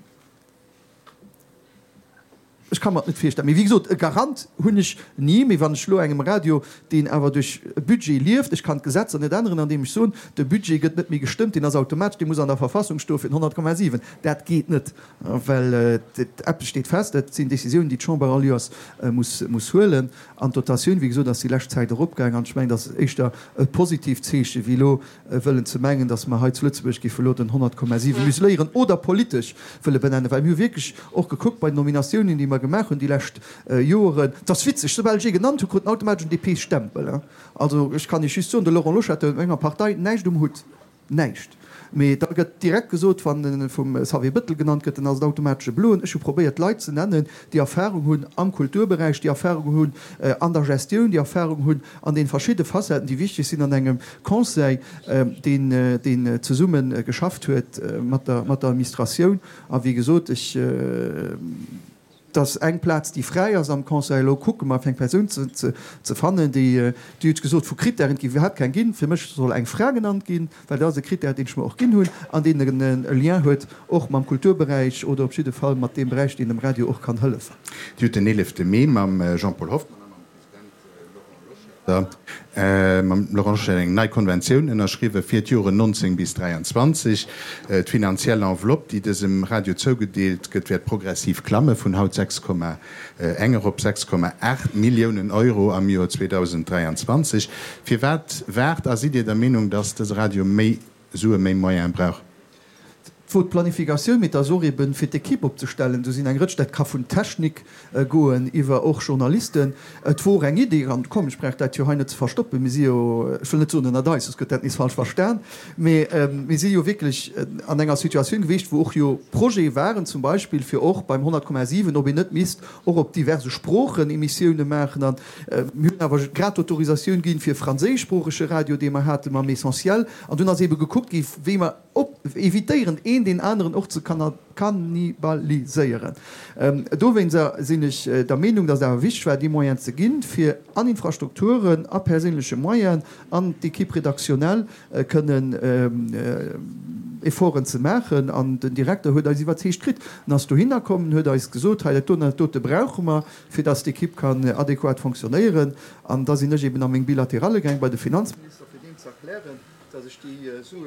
Ech ka mer et net virstellen. Mee wéi gesot, e Garant hunn ech ni. Mee wann ech elo engem Radio, deen awer duerch e Budget lieft, ech kann d'Gesetzer net änneren, andeem ech soen, de Budget gëtt net méi gestëmmt, deen ass automatesch, dee muss an der Verfassung stoe fir den 100,7. Dat geet net, well eppes steet fest, dat sinn Décisiounen, déi d'Chamber all Joers muss huelen. An d'Dotatioun, wéi gesot, ass déi lescht Zäit eropgaang. An ech mengen, dat ass éischter e positiivt Zeeche wéi elo wëllen ze mengen, datt mer hei zu Lëtzebuerg géife elo den 100,7 museléieren oder politesch wëlle benennen. Well mir hu wierklech och gekuckt bei den Nominatiounen, déi mer gemaach hunn déi lescht Joeren, et ass witzeg, soubal ech ee genannt hu krut en automatesch en DP-Stempel. Also ech kann Iech just soen, de Laurent Loschetter huet mat menger Partei näischt um Hutt. Näischt. Mee da gëtt direkt gesot, wann e vum Xavier Bëttel genannt gëtt, dann ass et automatesch e Bloen. Ech hu probéiert, Leit ze nennen, déi Erfahrung hunn am Kulturberäich, déi Erfahrung hunn an der Gestioun, déi Erfahrung hunn an deene verschidde Facetten, déi wichteg sinn an engem Conseil, deen, deen zesumme geschafft huet mat der, mat der Administratioun. A wéi gesot, ech. Et ass eng Plaz, déi fräi ass am Conseil. Elo kucke mer, fir eng Persoun ze fannen, déi, Dir hutt gesot, vu Krittären, et géif iwwerhaapt keng ginn. Fir mech soll eng Fra genannt ginn, well dat ass e Krittär, deen ech mer och ginn hunn an deen e Lien huet och mam Kulturberäich oder op jidde Fall mat deem Beräich, deen dem Radio och kann hëllefen. Dir hutt den 11 Mee mam Jean-Paul Hoffmann a mam President Laurent Loschetter, mam Laurent Loschetter eng nei Konventioun ënnerschriwwen fir d'Joren 19 bis 23. D'finanziell Enveloppe, déi dësem Radio zougedeelt gëtt, wäert progressiv klamme vun haut 6,1 erop 6,8 Milliounen Euro am Joer 2023. Firwat waart a sidd Dir der Meenung, datt dëse Radio méi Sue, méi Moyene brauch? Et wor d'Planifikatioun, mee et ass och eben fir d'Equipe opzestellen. Do sinn eng Rëtsch, dat ka vun Technik goen iwwer och Journalisten. Et wor eng Idee, an komm, ech brauch dat jo hei net ze verstoppen, mir si jo, ech wëll net soen ënnert eis, soss gëtt dat nees falsch verstan, mee mir si jo wierklech an enger Situatioun gewiescht, wou och jo Projete waren, zum Beispill fir och beim 100,7, ob een net misst och op diverse Sproochen Emissioune maachen. An mir hunn awer grad d'Autorisatioun ginn fir e franséischsproochege Radio, dee mer hate mam Essentiel. An dunn ass ebe gekuckt gi wéi mer op evitéieren, een deen aneren och ze kannibaliséieren. Dowéinster sinn ech der Meenung, datt et awer wichteg war, déi Moyenen ze ginn, fir an Infrastrukturen, a perséinleche Moyenen, an d'Équipe rédactionnelle kënnen Efforten ze maachen. An den Direkter huet eis iwwerzeegt kritt. En ass dohinner komm, en huet eis gesot, hei dat doten an dat dote brauche mer, fir datt d'Équipe kann adequat fonctionnéieren. An da sinn ech eben a meng Bilateralle gaang bei de Finanzminister, fir deem ze erklären, datt ech déi Sue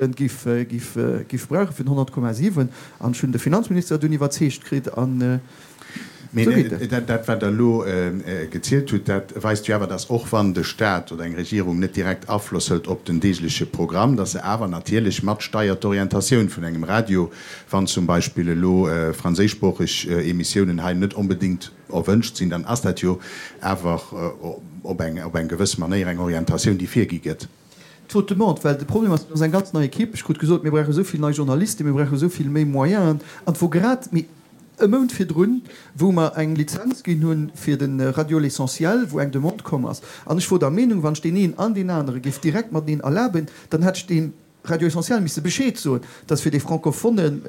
giff brauche fir den 100,7. An ech hunn de Finanzminister dunn iwwerzeegt kritt an esou geet et. Mee dat, wat Der elo gezielt hutt, dat weist jo awer, datt och wann de Stat oder eng Regierung net direkt Afloss hëlt op den deegleche Programm, datt se awer natierlech matsteiert d'Orientatioun vun engem Radio, wann zum Beispill elo franséischsproocheg Emissiounen hei net onbedéngt erwënscht sinn, dann ass dat jo awer op eng gewëss Manéier eng Orientatioun, déi virgi gëtt. D'Faute demande, well de Problem ass, et ass eng ganz nei Equipe. Ech krut gesot, mir brauche esou vill nei Journalisten, mir brauche esou vill méi Moyenen. An et wor grad méi e Mount virdrun, wou mer eng Lizenz ginn hu fir de Radio L'Essentiel, wou eng Demande komm ass. An ech wor der Meenung, wann ech deen een an deen anere géif direkt mateneen erlaben, dann hätt ech deem Radio Essentiel misse Bescheed soen, dass fir dee francophone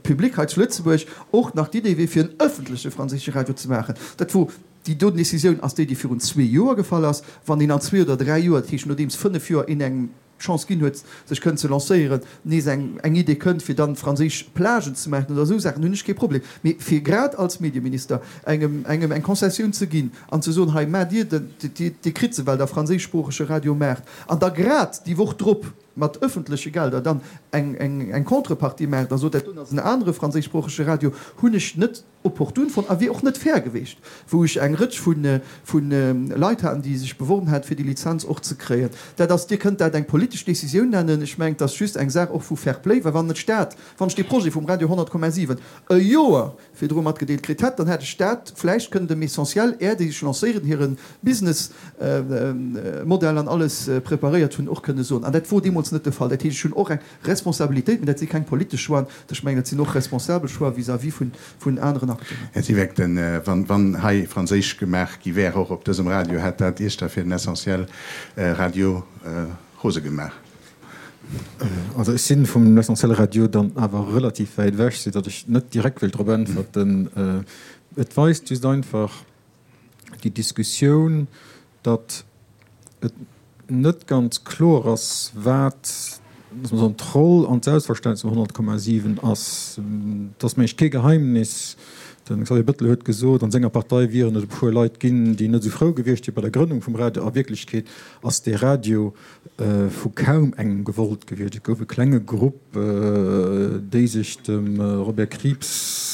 Public hei zu Lëtzebuerg och nach d'Idee wier, fir en ëffentleche franséische Radio ze maachen. Dat wor Déi doten Décisioun ass déi, déi virun zwee Joer gefall ass. Wann een an zwee oder dräi Joer, dat heescht nodeems fënnef Joer een engem d'Chance ginn huet, sech kënnen ze lancéieren, nees eng eng Idee kënnt, fir dann franséisch Plagen ze maachen oder esou Saachen, hunn ech kee Problem. Mee fir grad als Medieminister engem engem eng Concessioun ze ginn an ze soen, hei maacht Dir den, Dir Dir kritt se, well Der franséischsproochege Radio maacht, an da grad déi Woch drop mat ëffentleche Gelder dann eng eng eng Contrepartie maacht a sot, dat doen ass en anere franséischsproochege Radio, hunn ech net opportun fonnt a wier och net fair geweecht, wou ech eng Rëtsch vu Leit haten, déi sech beworben haten, fir déi Lizenz och ze kréien. Dat ass, Dir kënnt dat eng politesch Décisioun nennen, ech mengen, et ass just eng Saach och vu Fair Play, well wann et d'Stad, wann ech dee Projet vum Radio 100,7 e Joer virdru matgedeelt kritt hätt, dann hätt ech dat vläicht kënnen dem Essentiel, är déi sech lancéieren, hire Businessmodell an alles preparéiert hunn, och kënne soen. An dat wor deemools net de Fall. Dat heescht, ech hunn och eng Responsabilitéit, mee dat si keng politesch Choixen, ech mengen, dat sinn och responsabel Choix vis-à-vis vun aneren Acteuren. Här Siweck, den, wann hei Franséisch gemaach gi wär, och op dësem Radio, hätt dat Iech da fir den Essentiel Radio rose gemaach? Also ech si vum L'Essentiel Radio dann awer relativ wäit ewech, soudatt ech net direkt wéilt drop äntwerten. Et weist just einfach déi Diskussioun, datt et net ganz kloer ass, wat. Loosse mer soen, d'Roll an d'Selbstverständnis vum 100,7 ass, et ass mengen ech kee Geheimnis, de Xavier Bettel huet gesot, an senger Partei wieren et e puer Leit ginn, déi net esou frou gewiescht wier bei der Grënnung vum Radio. A Wierklechkeet ass dee Radio vu kaum engem gewollt gewiescht. Et gouf e klenge Grupp, déi sech dem Robert Krieps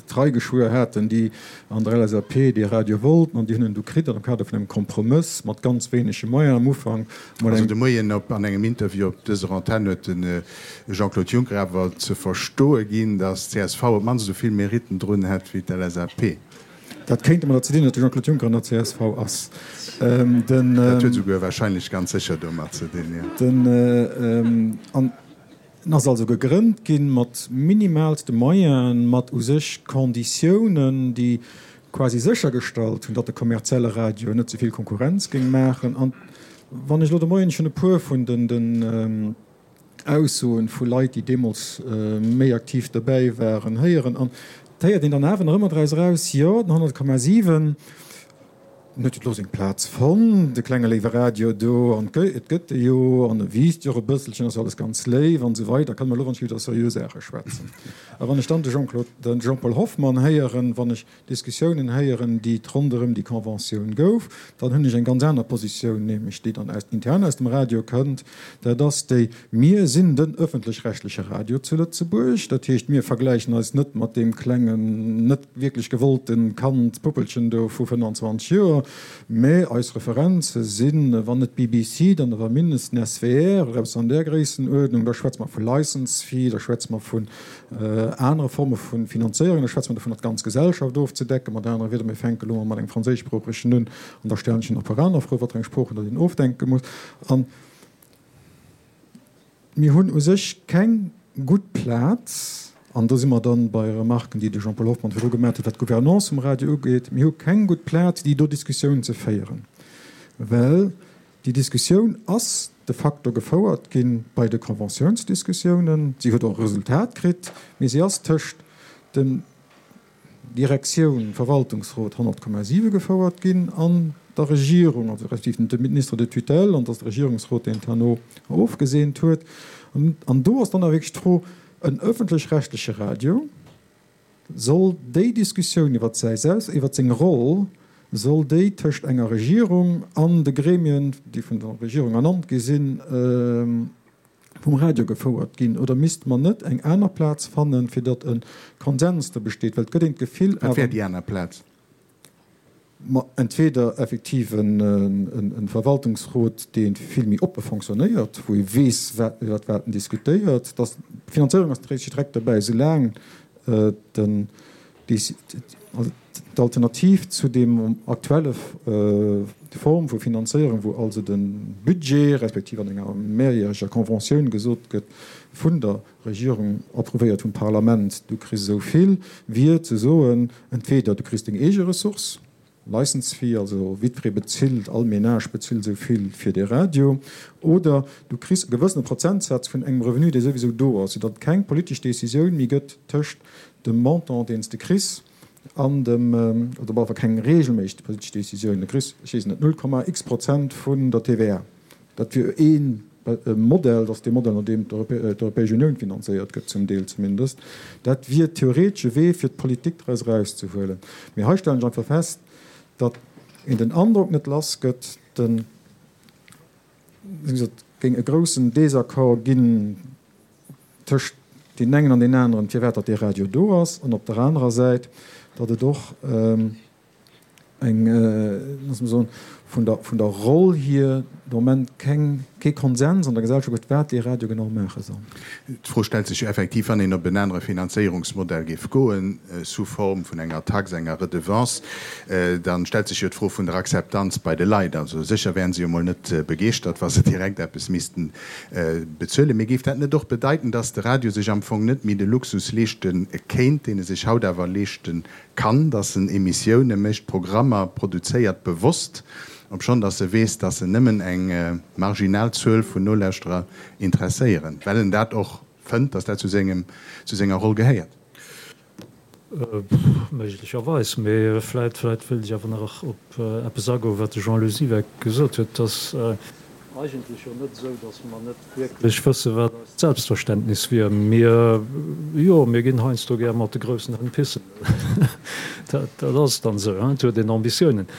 d'Trei geschwuer haten, déi an der LSAP dee Radio wollten, an déi hunn en du kritt an am Kader vun engem Kompromëss mat ganz wéinege Moyenen am Ufank. Also de Moien op an engem Interview op dëser Antenn huet de Jean-Claude Juncker awer ze verstoe ginn, datt d'CSV op d'mannst esou vill Meritten drun hätt wéi d'LSAP. Dat kéint domadder ze dinn, datt de Jean-Claude Juncker an der csv ass. Dat huet esouguer warscheinlech ganz sécher domat ze dinn, jo. An en ass also gegrënnt gi mat minimalste Moyenen, mat u sech Konditiounen, déi quasi séchergestallt hunn, datt de kommerzielle Radio net ze vill Konkurrenz géing maachen. An wann ech elo de Moien schonn e puer vun den Aussoen vu Leit, déi deemools méi aktiv dobäi waren, héieren, an et héiert een dann awer nach ëmmer draus eraus, jo, den 100,7, en huet jo elo seng Plaz fonnt, de klenge léiwe Radio do, an et gëtt e jo, an e wiisst jo och e bësselchen, ass jo alles ganz léif an esou weider, kann mer elo wann ech iwwer seriö Saache schwätzen. A wann ech dann de Jean-Claude, de Jean-Paul Hoffmann héieren, wann ech Diskussiounen héieren, déi et ronderëm déi Conventioun gouf, dann hunn ech eng ganz aner Positioun, nämlech déi dann aus, intern aus dem Radio kënnt, dat ass déi, Mir sinn den öffentlech-rechtleche Radio zu Lëtzebuerg, dat heescht, mir vergläichen eis net mat deem klengen, net wierklech gewollte Kand, Puppelchen do vu 25 Joer, mä eis Referenze sinn, wann net BBC, dann awer mindestens SWR oder eppes an där Gréissenuerdnung. Da schwätze mer vu License Fee, da schwätze mer vun anere Forme vu Finanzéierung, da schwätze mer dovun, d'ganz Gesellschaft ofzedecken. Mat anere Wieder, mir fänke elo mol mat engem franséischsproochegen un an da stellen ech nach e puer aner Froen, wat fir eng Sproochen datt een ofdenke muss. An mir hunn u sech keng gutt Plaz, an do si mer dann bei Remarken, déi de Jean-Paul Hoffmann virdru gemaat huet, wat d'Gouvernance vum Radio ugeet, mir hu keng gutt Plaz, déi do Diskussioun ze féieren, well déi Diskussioun ass de facto gefouert gi bei de Conventiounsdiskussiounen. Si huet och e Resultat kritt, mee si ass tëscht dem Direktioun, Verwaltungsrot 100,7 gefouert ginn an der Regierung, also respektiv dem Ministre de tutelle, an et ass de Regierungsrot, deen et herno ofgeseent huet. An do ass dann awer wierklech d'Fro, En öffentlech-rechtleche Radio soll déi Diskussioun iwwer säi Selbst, iwwer seng Roll, soll déi tëscht enger Regierung an de Gremien, déi vun der Regierung ernannt gi sinn, vum Radio gefouert ginn oder misste mer net eng aner Plaz fannen, fir datt e Konsens do besteet? Well et gëtt een d'Gefill Wat wär déi aner Plaz? Ma entweder effektiv e Verwaltungsrot, dee vill méi oppe fonctionnéiert, wou ee weess, iwwert wat en diskutéiert. D'Finanzéierung ass natierlech direkt dobäi, soulaang den D'Alternativ zu deem aktuelle Form vu Finanzéierung, wou also de Budget, respektiv an enger mehrjähreger Conventioun gesot gëtt vun der Regierung, approuvéiert vum Parlament, du kriss esou vill, wier ze soen, entweder du kriss deng eege Ressource, License fee, also jiddweree bezilt, all Ménage bezilt esou vill fir dee Radio, oder du kriss e gewëssene Prozentsaz vun engem Revenu, dee souwisou do ass, soudatt et keng politesch Décisioun méi gëtt tëscht dem Montant, deen s de kriss, an dem, oder op alle Fall keng reegelméisseg politesch Décisioun, du kriss, ech weess net, null Komma x Prozent vun der TVA. Dat wier ee Modell, dat ass dee Modell, no deem d'Europäesch Unioun finanzéiert gëtt, zum Deel zumindest. Dat wier theoretesch e Wee, fir d'Politik draus erauszehuelen. Mee hei stellen ech einfach fest, datt een den Androck net lass gëtt, de, wéi gesot, géing e groussen Désaccord ginn tëscht deenen engen an deenen aneren, firwat datt dee Radio do ass, an op der anerer Säit, datt et och, eng, loosse mer soen, vun der, vun der Roll hier de Moment keng, kee Konsens an der Gesellschaft gëtt, wat dee Radio genau maache soll. D'Fro stellt sech jo effektiv, wann een op en anere Finanzéierungsmodell géif goen, sous forme vun enger Tax, enger Redevance, da stellt sech jo d'Fro vun der Akzeptanz bei de Leit. Also sécher wären se jo mol net begeeschtert, wa se direkt eppes missten bezuelen. Mee géif dat net och bedeiten, dass de Radio sech am Fong net méi de Luxus leeschte kéint, deen e sech haut awer leeschte kann, dass en Emissioune mécht, Programmer produzéiert, bewosst, obschonn dass e weess, dass en nëmmen eng marginal Zuel vun Nolauschterer interesséieren, well en dat och fënnt, dass dat zu sengem, zu senger Roll gehéiert. Méiglecherweis, mee vläit, vläit wéilt ech awer nach op eppes agoen, wat de Jean-Lou Siweck gesot huet, dass. Eigentlech jo net esou, datt mer net wierklech wësse wat eist Selbstverständnis wier. Mir, jo, mir ginn heiansdo gär mat de groussen Hënn pissen. Dat, dat ass dann esou, hein, et huet een Ambitiounen.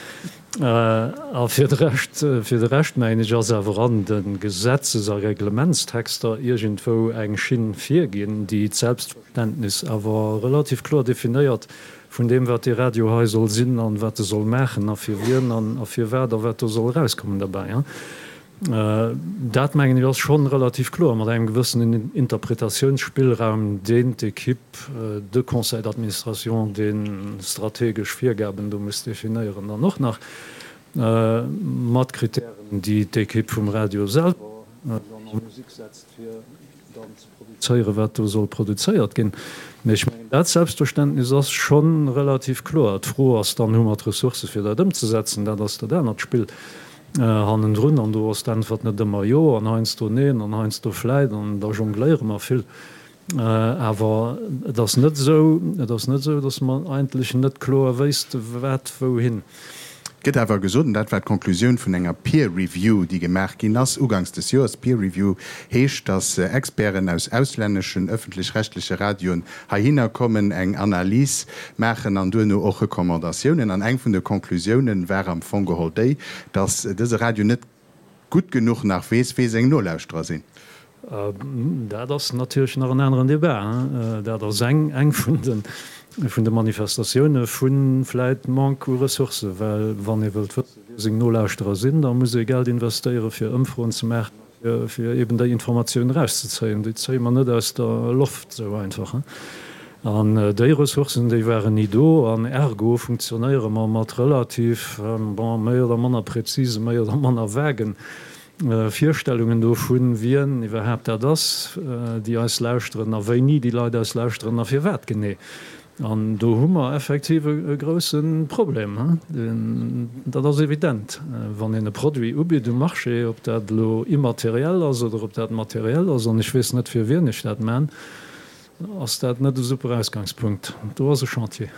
A fir de Rescht, fir de Rescht mengen ech, ass awer an de Gesetzes a Reglementstexter iergendwou eng Schinn virginn, déi d'Selbstverständnis awer relativ kloer definéiert vun deem, wat dee Radio hei soll sinn an wat e soll maachen a fir wien an a firwat a wat do soll erauskommen derbäi. Dat, mengen ech, ass schonn relativ kloer, mat engem gewëssenen Interpretatiounsspillraum, deen d'Equipe, de Conseil d'administration, dee strategesch Virgaben do muss definéieren, dann och nach mat Kritären, déi d'Equipe vum Radio selwer dann a Musik setzt, fir dann ze produzéieren, wat do soll produzéiert ginn. Mee ech mengen, dat Selbstverständnis ass scho relativ kloer. D'Fro ass dann, Hu mer d'Ressourcë fir dat ëmzesetzen? Dat ass dat anert Spill hannendrun. An do ass d'Äntwert net ëmmer jo an heiansdo neen an heiansdo vläit an da jongléiere mer vill. Awer et ass net esou, et ass net esou, datt mer eigentlech net kloer wéisste wat wouhin. Et gëtt awer gesot, an dat war d'Conclusioun vun enger Peer Review, déi gemaach ginn ass uganks des Joers, Peer Review heescht, datt Experten aus auslänneschen ëffentlech-rechtleche Radioen heihinner kommen, eng Analys maachen an duerno och Recommandatiounen. An eng vun de Conclusiounen war am Fong geholl déi, datt dëse Radio net gutt genuch nach weess, wee seng Nolauschterer sinn. Dat ass natierlech nach en aneren Debat. Dat ass eng eng vun de vun de Manifestatioune vu vläit Manque u Ressourcen. Well wann ee wëllt wëssen, wie seng Nolauschterer sinn, da muss ee Geld investéiere fir Ëmfroen ze maachen a fir eben déi Informatioun erauszezéien. Déi zéie mer net aus der Loft esou einfach. An déi Ressourcen, déi waren ni do. An ergo funktionéiere mer mat relativ, bon, méi oder manner präzisen, méi oder manner vagen Virstellungen dovun, wien iwwerhaapt dat ass, déi eis lauschteren a wéini déi Leit eis lauschteren a firwat genee. An do hu mer effektiv e grousse Problem. Dat ass evident. Wann een e Produit ubitt um Marché, ob dat elo immateriell ass oder ob dat materiell ass, an ech weess net fir wien ech dat man, Ass dat net e super Ausgangspunkt? Do ass e Chantier.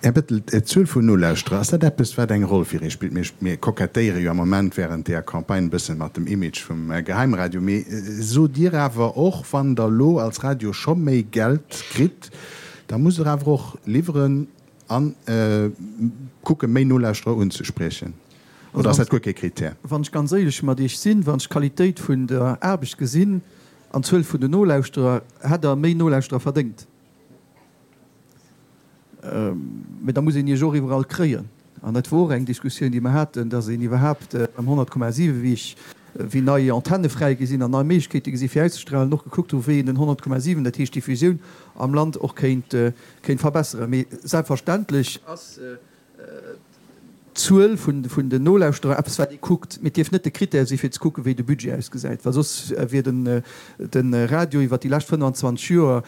Här Bettel, d'Zuel vun Nolauschterer, ass dat eppes, wat eng Roll fir Iech spillt? Mir, mir kokettéiere jo am Moment während deeër Campagne e bëssen mat dem Image vum Geheimradio. Mee sot Dir awer och, wann Der elo als Radio scho méi Geld kritt, da musst Der awer och liwweren a kucken, méi Nolauschterer unzespriechen? Oder ass dat guer kee Krittär? Wann ech ganz éierlech mat Iech sinn, wann ech d'Qualitéit vun der Aarbecht gesinn, An d'Zuel vun den Nolauschterer, hätt Der méi Nolauschterer verdéngt. Mä da muss een Iech och iwwerall kréien. An dat wor och eng Diskussioun, déi mer haten, dass een iwwerhaapt beim 100,7, wéi ech, wéi nei Antenne fräi gi sinn an nei Méiglechkeete gi si fir auszestrahlen, och gekuckt hu wéi een den 100,7, dat heescht d'Diffusioun am Land, och kéint, kéint verbesseren. Mee selbstverständlech ass d'Zuel vun den Nolauschterer eppes wat ee kuckt, mee et dierf net de Critère si fir ze kucken, wéi de Budget ausgesäit, well soss wier de Radio iwwer déi lescht 25 Joer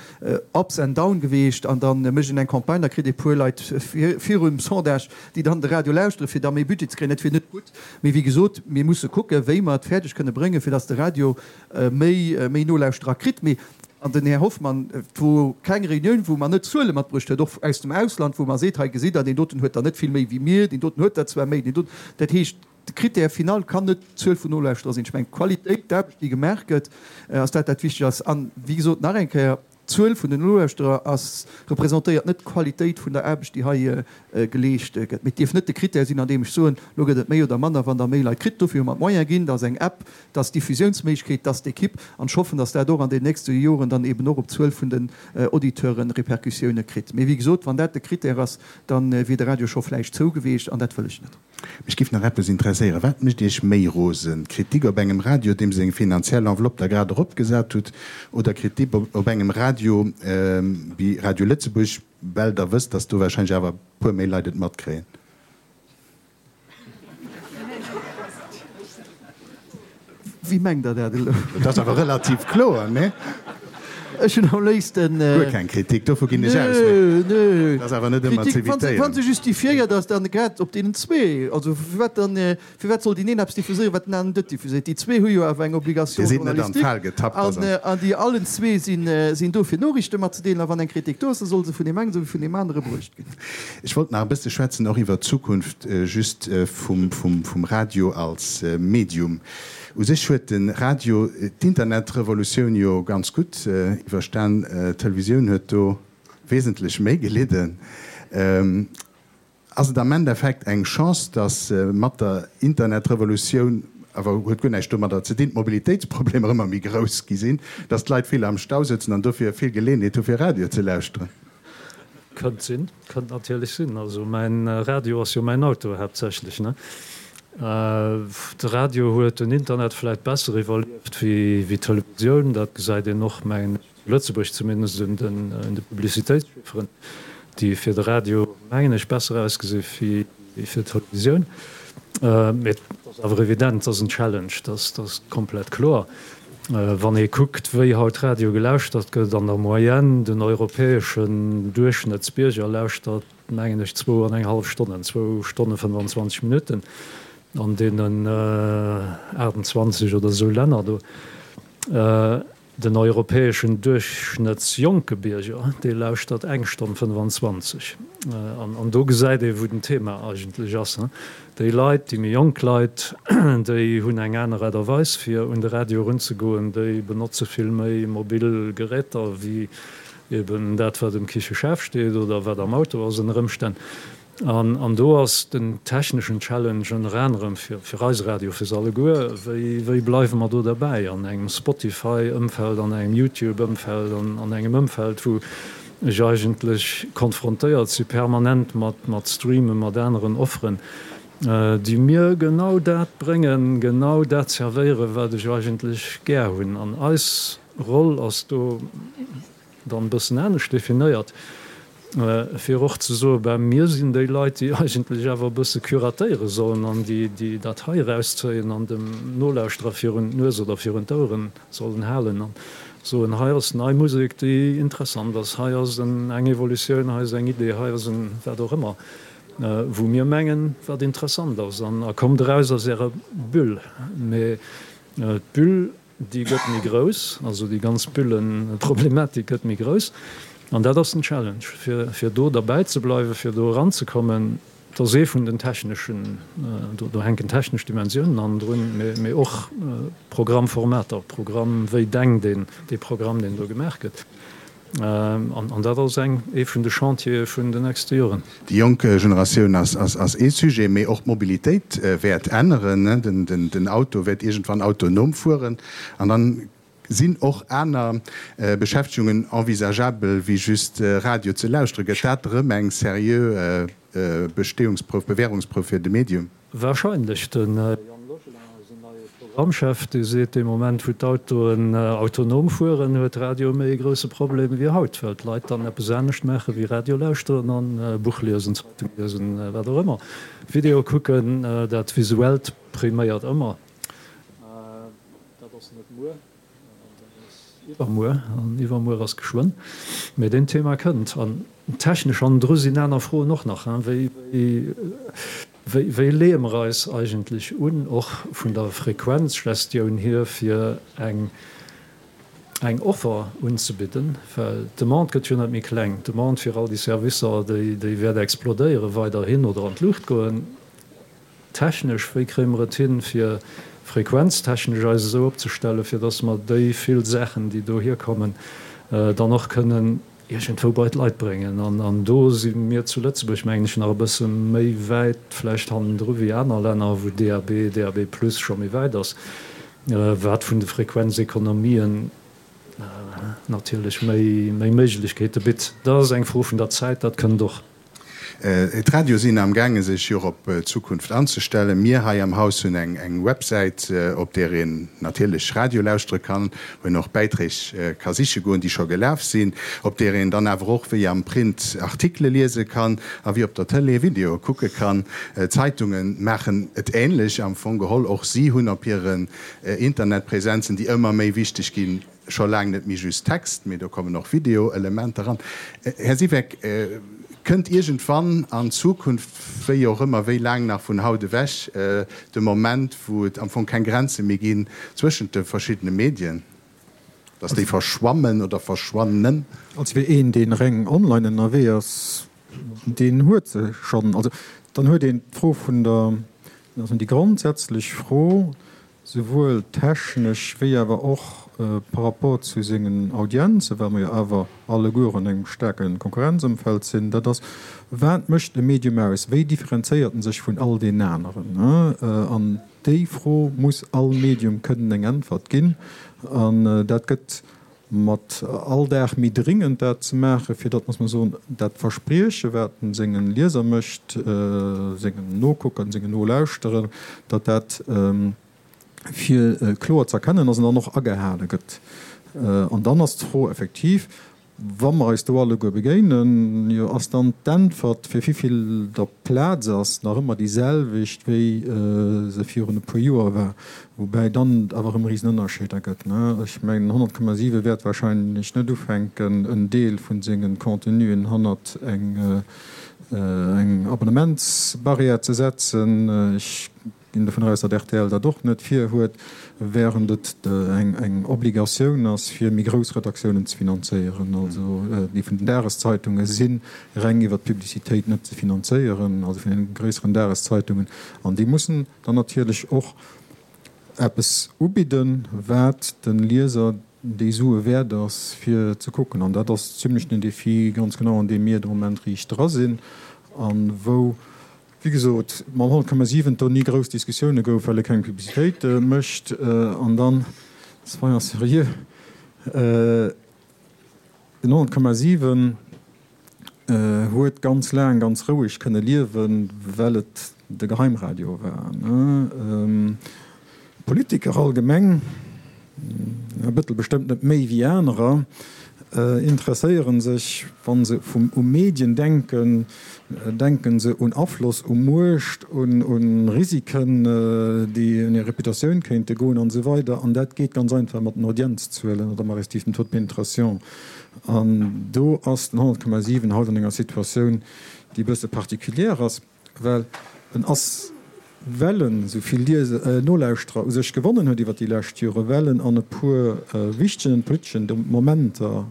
ups and down geweecht an da mécht een eng Campagne, da kritt ee puer Leit virum Sondage, déi dann de Radio lauschteren, fir da méi Budget ze kréien. Dat wier net gutt. Mee wéi gesot, mir musse kucken, wéi mer et fäerdeg kënne bréngen, fir datt de Radio méi Nolauschterer kritt. Mee An den Här Hoffmann, et wor keng Reunioun, wou mer net Zuele matbruecht huet, och aus dem Ausland, wou mer seet, hei gesitt Der, deen doten huet der net vill méi wéi mir, deen doten huet der zwar méi, deen doten. Dat heescht, de Critère final kann net d'Zuel vun Nolauschterer sinn. Ech mengen, d'Qualitéit, d'Aarbecht, déi gemaach gëtt, ass dat, dat wichteg ass. An, wéi gesot, nach eng Kéier, d'Zuel vun den Nolauschterer ass, representéiert net d'Qualitéit vun der Aarbecht, déi hei geleescht gëtt. Mee et dierf net de Critère sinn, an deem ech soen, elo gëtt et méi oder manner, wann Der méi Leit kritt. Dofir hu mer d'Moyene ginn, dass eng App, dass d'Diffusiounsméiglechkeet, dass d'Equipe, an ech hoffen, dass dat och an den nächste Joren dann eben och op d'Zuel vun den Auditeure Répercussioune kritt. Mee wéi gesot, wann dat de Critère ass, da wier de Radio scho vläicht zou geweecht, an dat wëll ech net. Mech giff nach eppes interesséieren, Wat mécht Iech méi rosen, Kritik op engem Radio, deem seng finanziell Enveloppe Der grad eropgesat hutt, oder Kritik op engem Radio wéi Radio Lëtzebuerg, well Der wësst, dass do wahrscheinlech awer e puer méi Leit et matkréien? Wéi mengt Der dat elo? Dat ass awer relativ kloer, nee? Ech hunn am léifsten. Guer keng Kritik, dovu ginn ech aus, mee dat ass awer net ëmmer z'evitéieren. Wa se justifiéiert ass, dann grad op deenen zwee. Also firwat dann, firwat soll deen een eppes diffuséieren, wat den aneren net diffuséiert? Déi zwee hu jo awer eng Obligation Dir sidd net an d'Fal getappt, an an déi allen zwee sinn, sinn do fir Noriichte matzedeelen. A wann eng Kritik do ass, da soll se vun deem engen esou wéi vun deem anere bruecht ginn. Ech wollt nach e bësse schwätzen och iwwert d'Zukunft just vum, vum, vum Radio als Medium. U sech huet de Radio d'Internetrevolutioun jo ganz gutt iwwerstan. D'Televisioun huet do wesentlech méi gelidden. Ass et am Endeffekt eng Chance, datt mat der Internetrevolutioun, awer huet guer näischt domadder ze dinn, d'Mobilitéitsproblemer ëmmer méi grouss gi sinn, datt d'Leit vill am Stau sëtzen an dofir vill Geleeënheet hu fir Radio ze lauschteren? Kënnt sinn, kënnt natierlech sinn. Also mäin Radio ass jo mäin Auto haaptsächlech, ne? De Radio huet den Internet vläit besser iwwerlieft wéi d'Televisioun. Dat gesäit een och, mengen ech, zu Lëtzebuerg zumindest un de Publicitéitschifferen, déi fir de Radio, mengen ech, besser ausgesi wéi fir d'Televisioun. Mee et ass awer evident, et ass en Challenge, dat ass komplett kloer. Wann ee kuckt, wéi haut Radio gelauschtert gëtt, an der Moyenne, den europäeschen Duerchschnëttsbierger lauschtert, mengen ech, zwou an eng hallef Stonnen, zwou Stonne 25 Minutten an deenen 28 oder esou Länner do. Den europäeschen duerchschnëttsjonke Bierger, dee lauschtert eng Stonn 25. An do gesäit ee wou den Thema eigentlech ass. Déi Leit, déi méi jonk Leit, déi hunn eng aner Aart a Weis fir un de Radio erunzegoen, déi benotze vill méi mobil Geräter wéi eben dat wat um Kicheschaf steet oder wat am Auto ass ënner Ëmstänn. An do ass den techneschen Challenge ënner anerem fir eise Radio, fir se alleguer, wéi wéi bleiwe mer do derbäi an engem Spotify-Ëmfeld, an engem YouTube-Ëmfeld, an engem Ëmfeld, wou ech eigentlech konfrontéiert si permanent mat mat Streamen, mat aneren Offeren, déi mir genau dat bréngen, genau dat servéieren, wat ech eigentlech gär hunn. An eis Roll ass do, dann e bëssen anescht definéiert, fir och ze soen, ben, mir sinn déi Leit, déi eigentlech awer e bësse curatéiere sollen an déi, déi dat hei erauszéien an dem Nolauschterer virun d'Nues oder virun d'Oueren sollen halen an soen, hei ass nei Musek, déi interessant ass, hei ass eng Evolutioun, hei ass eng Idee, hei ass en wat och ëmmer, wou mir mengen, wat interessant ass. An a kommt eraus aus Ärer Bulle. Mee d'Bulle Déi gëtt méi grouss, also déi ganz Bullenproblematik gëtt méi grouss. An dat ass den Challenge, fir, fir do derbäi ze bleiwen, fir do eranzekommen. Dat ass ee vun den techneschen, do, do hänken technesch Dimensiounen hannendrun, mee, mee och Programmformater, Programm, wéi denkt een dee Programm, deen do gemaach gëtt. An dat ass eng, ee vun de Chantiere vun den nächste Joren. Déi jonk Generatioun ass ee Sujet, mee och d'Mobilitéit wäert änneren. Den Auto wäert iergendwann autonom fueren an dann sinn och aner Beschäftegungen envisageabel wéi just Radio ze lauschteren. Gëtt dat erëm eng seriö Bestehungsprouf, Bewährungsprouf fir de Medium? Wahrscheinlech. De Yann Logelin, eisen neie Programmchef, dee seet, dee Moment wou d'Autoen autonom fueren, huet Radio méi e grousse Problem wéi haut, well d'Leit dann eppes anescht maache wéi Radio lauschteren an Buch liesen, Zeitung liesen, wat och ëmmer, Video kucken. Dat Visuellt priméiert ëmmer. Dat ass net muer. Dat ass iwwermuer, an iwwermuer ass geschwënn. Mee deen Thema kënnt. An technesch hannendru sinn aner Froen och nach, wéi, wéi, wéi leeë mer eis eigentlech un, och vun der Frequenzgestioun hier, fir eng, eng Offer unzebidden, well d'Demande gëtt jo net méi kleng. D'Demande fir all déi Servicer, déi, déi wäert explodéiere weiderhin oder an d'Luucht goen. Technesch, wéi kréie mer et hin, fir frequenztechnesch eis esou opzestellen, fir dass mer déi vill Saachen, déi dohier kommen, dann och kënnen iergendwou bei d'Leit bréngen? An do si mir zu Lëtzebuerg, mengen ech, nach e bësse méi wäit vläicht hannendru wéi aner Länner, wou DAB, DAB plus scho méi wäit ass, wat vun de Frequenzekonomien natierlech méi Méiglechkeete bitt. Dat ass eng Fro vun der Zäit, dat kënnt och. D'Radioe sinn am gaange sech jo och op d'Zukunft anzestellen. Mir hei am Haus hunn eng Websäit, op där een natierlech Radio lauschtere kann, wou een och Bäiträg ka siche goen, déi scho gelaf sinn, op där een dann awer och wéi am Print Artikele liese kann a wéi op der Tëlee Videoe kucke kann. D'Zeitunge maachen et änlech am Fong geholl. Och si hunn op hiren Internetpräsenzen, déi ëmmer méi wichteg ginn, Scho laang net méi just Text, mee do kommen och Video-Elementer eran. Här Siweck, kënnt iergendwann an Zukunft, wéi och ëmmer, wéi laang nach vun haut ewech, de Moment, wou et am Fong keng Grenze méi ginn zwëschent de verschiddene Medien, dass déi verschwammen oder verschwannen? Also fir een, dee reng online ënnerwee ass, deen huet se schonn. Also dann huet een d'Fro vun der, also déi grondsätzlech Fro, souwuel technesch wéi awer och par rapport zu sengen Audienzen, well mer jo awer alleguer an engem staarke Konkurrenzëmfeld sinn, dat ass, Wat mécht e Medium aus? Wéi differenzéiert en sech vun all deenen aneren? An déi Fro muss all Medium kënnen eng Äntwert ginn. An dat gëtt mat all Dag méi dringend, dat ze maachen, fir datt, muss mer soen, dat Versprieche, wat en sengen Lieser mécht, sengen Nokuckern, sengen Nolauschterern, datt dat fir kloer ze erkennen ass an dann och agehale gëtt. An dann ass d'Fro effektiv, Wa mer eis do alleguer begéinen, jo, ass dann d'Äntwert, fir wivill der Plaz ass, nach ëmmer déi selwecht, wéi se virun e puer Joer war? Woubäi dann et awer erëm Risenënnerscheeder gëtt. Ech mengen, 100,7 wäert wahrscheinlech net ufänken, en Deel vu senge Contenuen hannert eng Abonnementsbarrière ze setzen. Ech ginn dovun aus, datt rtl dat och net virhuet, während et eng Obligatioun ass, fir méi grouss Redaktiounen ze finanzéieren. Also déi vun den Dageszeitunge si reng iwwer d'Publicitéit net ze finanzéieren, also vun den gréisseren Dageszeitungen. An déi mussen dann natierlech och eppes ubidden, wat de Lieser déi Sue wäert ass, fir ze kucken. An dat ass zimlech den Défi, ganz genau, an deem mir de Moment riicht dra sinn a wou, wéi gesot, mam 100,7 do ni grouss Diskussioune gouf, well e keng Publicitéit mécht. An dann, soyons sérieux, den 100,7 huet ganz laang ganz roueg kënne liewen, well et de Geheimradio war. Politiker allgemeng, Här Bettel bestëmmt net méi wéi anerer, interesséiere sech, wa se u Medien denken, denke se un Afloss, u Muecht, un Risiken, déi un hir Reputatioun kéinte goen an esou weider. An dat geet ganz einfach mat den Audienzzuelen oder respektiv dem Taux de pénétration. An do ass den 100,7 haut an enger Situatioun, déi e bësse particulière ass. Well en ass, well en esou vill Lieser, Nolauschterer u sech gewonnen huet iwwer déi lescht Jore, well en an e puer wichtegen politeschen Momenter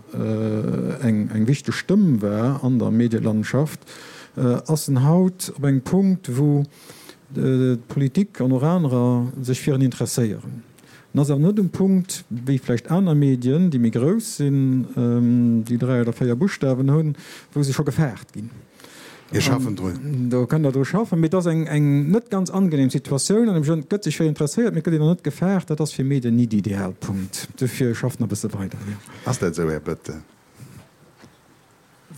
eng wichteg Stëmm war an der Medielandschaft, ass en haut op engem Punkt, wou d'Politik an och anerer sech fir en interesséieren. En ass awer net um Punkt, wéi vläicht aner Medien, déi méi grouss sinn, déi 3 oder 4 Buschtawen hunn, wou se scho gefaart ginn. Mir schaffen drun. Do kënnt Der dru schaffen. Mee et ass eng net ganz angenehm Situatioun. An et gëtt sech vill interesséiert, mee et gëtt een och net gefaart. Dat ass fir Medien ni de Idealpunkt. Dofir schafft nach e bësse weider, jo. Ass dat esou, Här Bettel?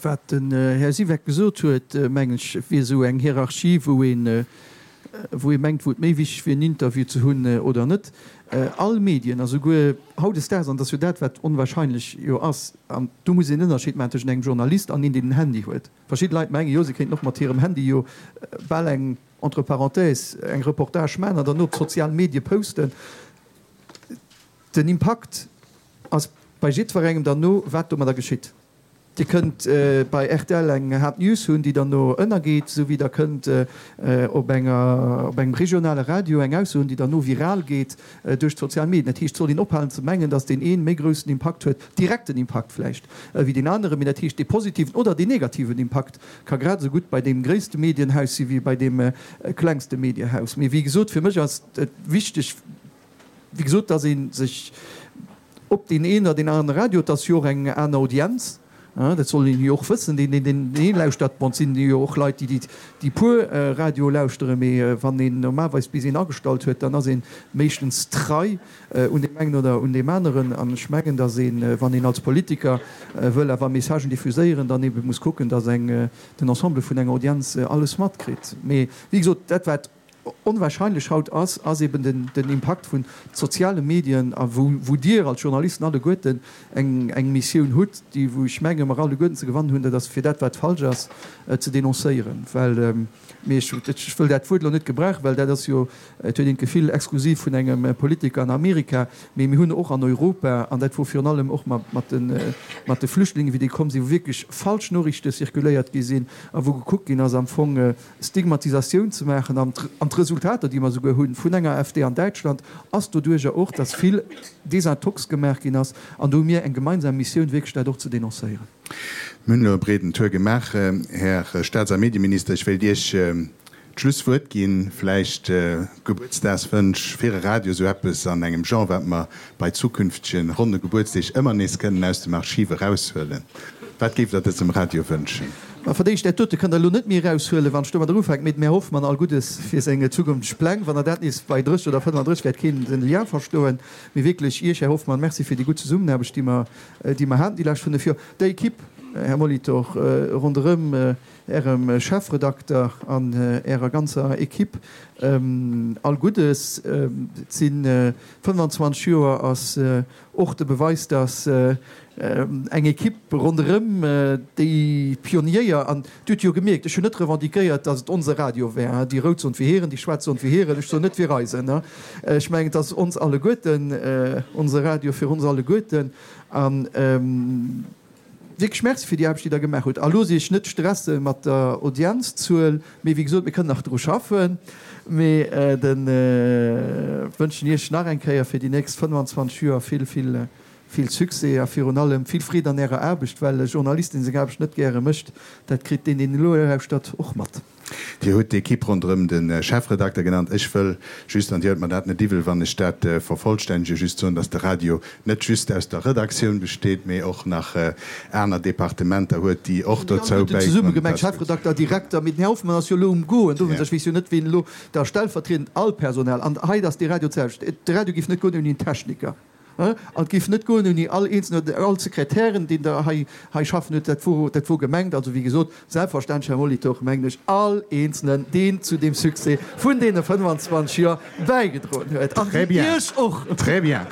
Wat den Här Siweck gesot huet, mengen ech, wier esou eng Hierarchie, wou een, wou ee mengt, wou et méi wichteg wier, en Interview ze hunn oder net. All Medien, a souguer hautdesdaags, an et ass jo dat, wat onwahrscheinlech jo ass, an do muss een en Ënnerscheed maachen tëschent engem Journalist an een, deen en Handy huet. Verschidde Leit mengen jo, se kéinten och mat hirem Handy jo bal eng, entre parenthèses, eng Reportage maachen an dann op d'sozial Medie posten. Den Impakt ass bei jiddwerengem dann no, wat domadder geschitt. Dir kënnt bei rtl eng Hard News hunn, déi dann no ënnergeet, esou wéi Der kënnt op enger, op engem regionale Radio eng Ausso hunn, déi dann no viral geet duerch d'sozial Medien. Dat heescht, et soll een ophalen ze mengen, datt deen ee méi groussen Impakt huet, direkten Impakt vläicht, wéi deen aneren. Mee dat heescht, dee positiven oder deen negativen Impakt ka grad esou gutt bei deem gréisste Medienhaus si wéi bei deem klengste Mediehaus. Mee wéi gesot, fir mech ass et wichteg, Wéi gesot, dass ee sech op deen een oder deen anere Radio, et ass jo och eng aner Audienz. Dat soll een jo och wëssen, deen, deen deen lauschtert. Bon, et sinn jo och Leit, déi déi puer Radio lauschteren, mee wann een normalerweis bis een agestallt huet, dann ass een meeschtens trei un deem engen oder un deem aneren. An ech mengen, datt een, wann een als Politiker wëll awer Messagen diffuséieren, dann ebe muss kucken, datt eng den Ensemble vun enger Audienz alles matkritt. Mee wéi gesot, dat wat onwahrscheinlech haut ass, ass eben den den Impakt vun soziale Medien a wou wou Dir als Journalisten alleguerten eng eng Missioun hutt, déi wou ech menge mer alleguerten ze gewannen hunn, dat ass fir dat wat falsch ass ze dénoncéieren, well mee ech ech wëll dat Wuert elo net gebrauchen, well dat ass jo, et huet een d'Gefill, exklusiv vun engem Politiker an Amerika, mee mir hunn och an Europa, an dat wor virun allem och mat mat de mat de Flüchtlingen, wéi déi komm sinn, wou wierklech falsch Noriichte circuléiert gi sinn a wou gekuckt ginn ass am Fong Stigmatisatioun ze maachen an d'Resultater, déi mer esouguer hu vun enger AfD an Däitschland, ass doduerjer och, dass vill Desintox gemaach ginn ass. An do hu mir eng gemeinsam Missioun, wierklech dat och ze denoncéieren. Mir hunn elo e breeden Tour gemaach, Här Staats a Medieminister. Ech wéilt Iech d'Schlusswuert ginn. Vläicht Gebuertsdagswënsch fir e Radio, esou eppes an engem Genre, wat mer bei zukünftege ronne Gebuertsdeeg ëmmer nees kënnen aus dem Archiv eraushuelen. Wat géift Der dësem Radio wënschen? Ma verdéicht, dat dote kënnt Der elo net méi eraushuelen, wann ech domadder ufänken. Mee dem Här Hoffmann all Guddes fir seng zukünfteg Pläng. Wann Der dat nees bei 30 oder 35 wäert keen den Lien verstoen. Mee wierklech Iech, Här Hoffmann, Merci fir déi gutt Zesummenaarbecht, déi mer, déi mer haten déi lescht 5 Joer. Der Equipe, Här Molitor, ronderëm Ärem Chefredakter an Ärer ganzer Equipe all Guddes. Et si 25 Joer ass och de Beweis, datt eng Equipe ronderëm déi Pionierer, an Dir hutt jo gemierkt, ech hunn net revendiquéiert, datt et onse Radio wär, déi Rout soen, wir hiren, déi Schwaarz soen, wir hiren, ech soen net wir eisen. Ech mengen, et ass ons alleguerten, onse Radio fir ons alleguerten. An wierklech Merci fir déi Aarbecht, déi Der gemaach hutt. A loosst Iech net stresse mat der Audienzzuel, mee wéi gesot, mir kënnen nach dru schaffen. Mee de wënschen Iech nach eng Kéier fir déi nächst 25 Joer vill, vill, vill Succès a virun allem vill Freed an Ärer Aarbecht, well e Journalist, dee seng Aarbecht net gäre mécht, dat kritt deen, deen elo lauschtert, och mat. Dir hutt d'Equipe ronderëm de Chefredakter genannt. Ech wëll just, an Dir huelt mer dat net iwwel, wann ech dat vervollstännegen, just soen, dass de Radio net just aus der Redaktioun besteet, mee och nach aner Departementer huet, déi och dozou bäidroen. Zesumme gemengt, Chefredakter, Direkter, mee den Här Hoffmann ass jo elo um Goen, dowéinst, ech weess jo net, wien elo da stellvertriedend all Personal, an hei ass de Radio d'selwecht, de Radio géif net goen ouni en Techniker. An et géif net goen ouni all eenzelnen oder all Sekretären, deen der hei hei schaffen huet. Dat wor, dat wor gemengt. Also, wéi gesot, selbstverständlech, Här Molitor, mengen ech all Eenzelnen, deen zu deem Succès vun deene 25 Joer bäigedroen huet. An Très bien. Iech och. Très bien.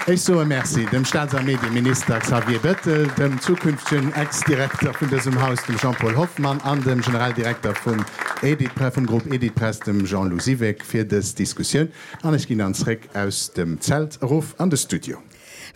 Ech soe Merci dem Staats a Medieminister Xavier Bettel, dem zukünftegen Ex-Direkter vun dësem Haus, dem Jean-Paul Hoffmann, an dem Generaldirekter vum Editpress, vum Groupe Editpress, dem Jean-Lou Siweck, fir dës Diskussioun. An ech ginn dann zréck aus dem Zelt erof an de Studio.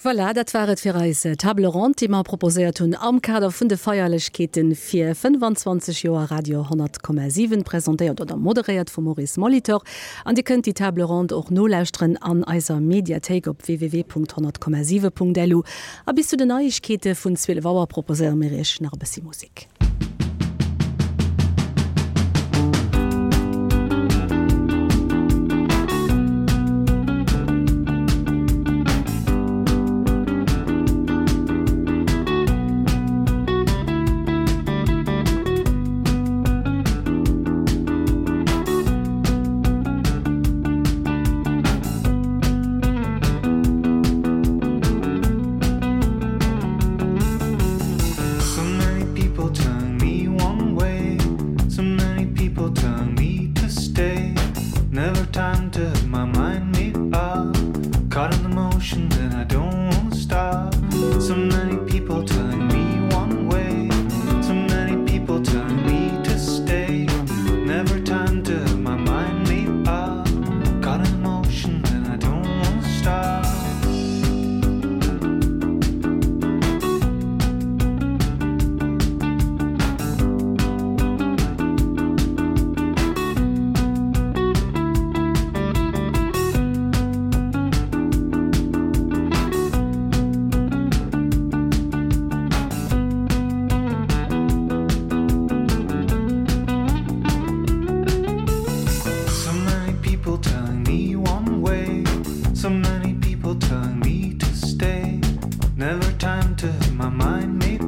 Voilà, dat war et fir eis Table ronde, déi mer proposéiert hunn am Kader vun de Feierlechkeete fir 25 Joer Radio 100,7, presentéiert oder moderéiert vum Maurice Molitor. An Dir kënnt déi Table ronde och nolauschteren an eiser Mediathéik op www.100,7.lu. A bis zu den Neiegkeete vun 12 Auer proposéiere mir Iech nach e bëssi Musek. So many people telling me one way, so many people telling me to stay. Never time to have my mind made up. Caught in the motion that I don't wanna stop. So many people telling me one way, so many people telling me to stay. Never time to have my mind made up. Caught in the motion that I don't wanna stop. So many people telling me one way, so many people telling me to stay. Never time to have my mind made.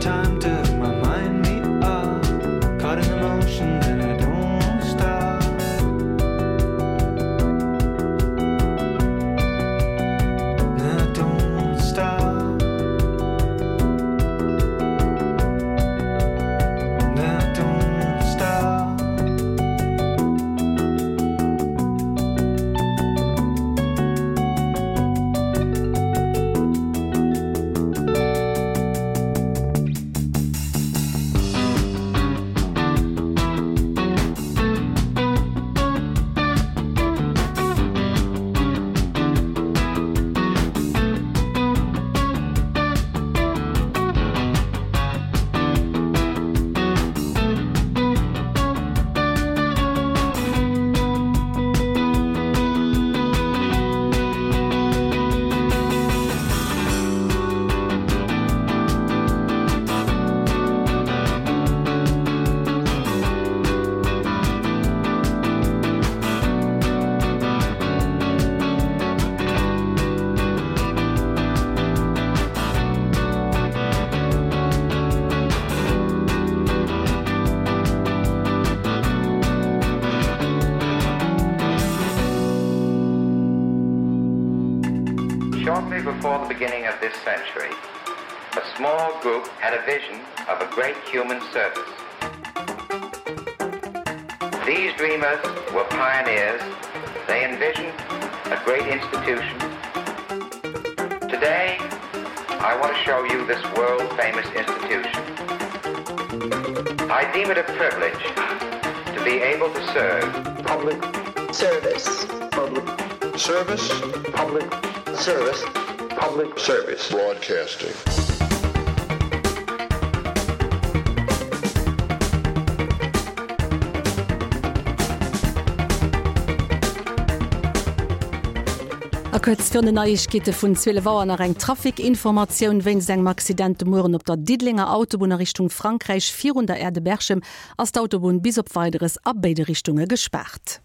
time to have my mind made up. Caught in the motion and I don't wanna stop. And I don't wanna stop. And I don't wanna stop. Shortly before the beginning of this century, a small group had a vision of a great human service. These dreamers were pioneers. They envisioned a great institution. Today, I want to show you this world-famous institution. I deem it a privilege to be able to serve public service public service public service public service broadcasting. A kuerz virun den Neiegkeete vun 12 Auer nach eng Trafic-Informatioun, Wéinst engem Accident de Mueren op der Diddelenger Autobunn a Richtung Frankräich virun der Aire de Berchem ass d'Autobunn bis op Weideres a béide Richtunge gespaart.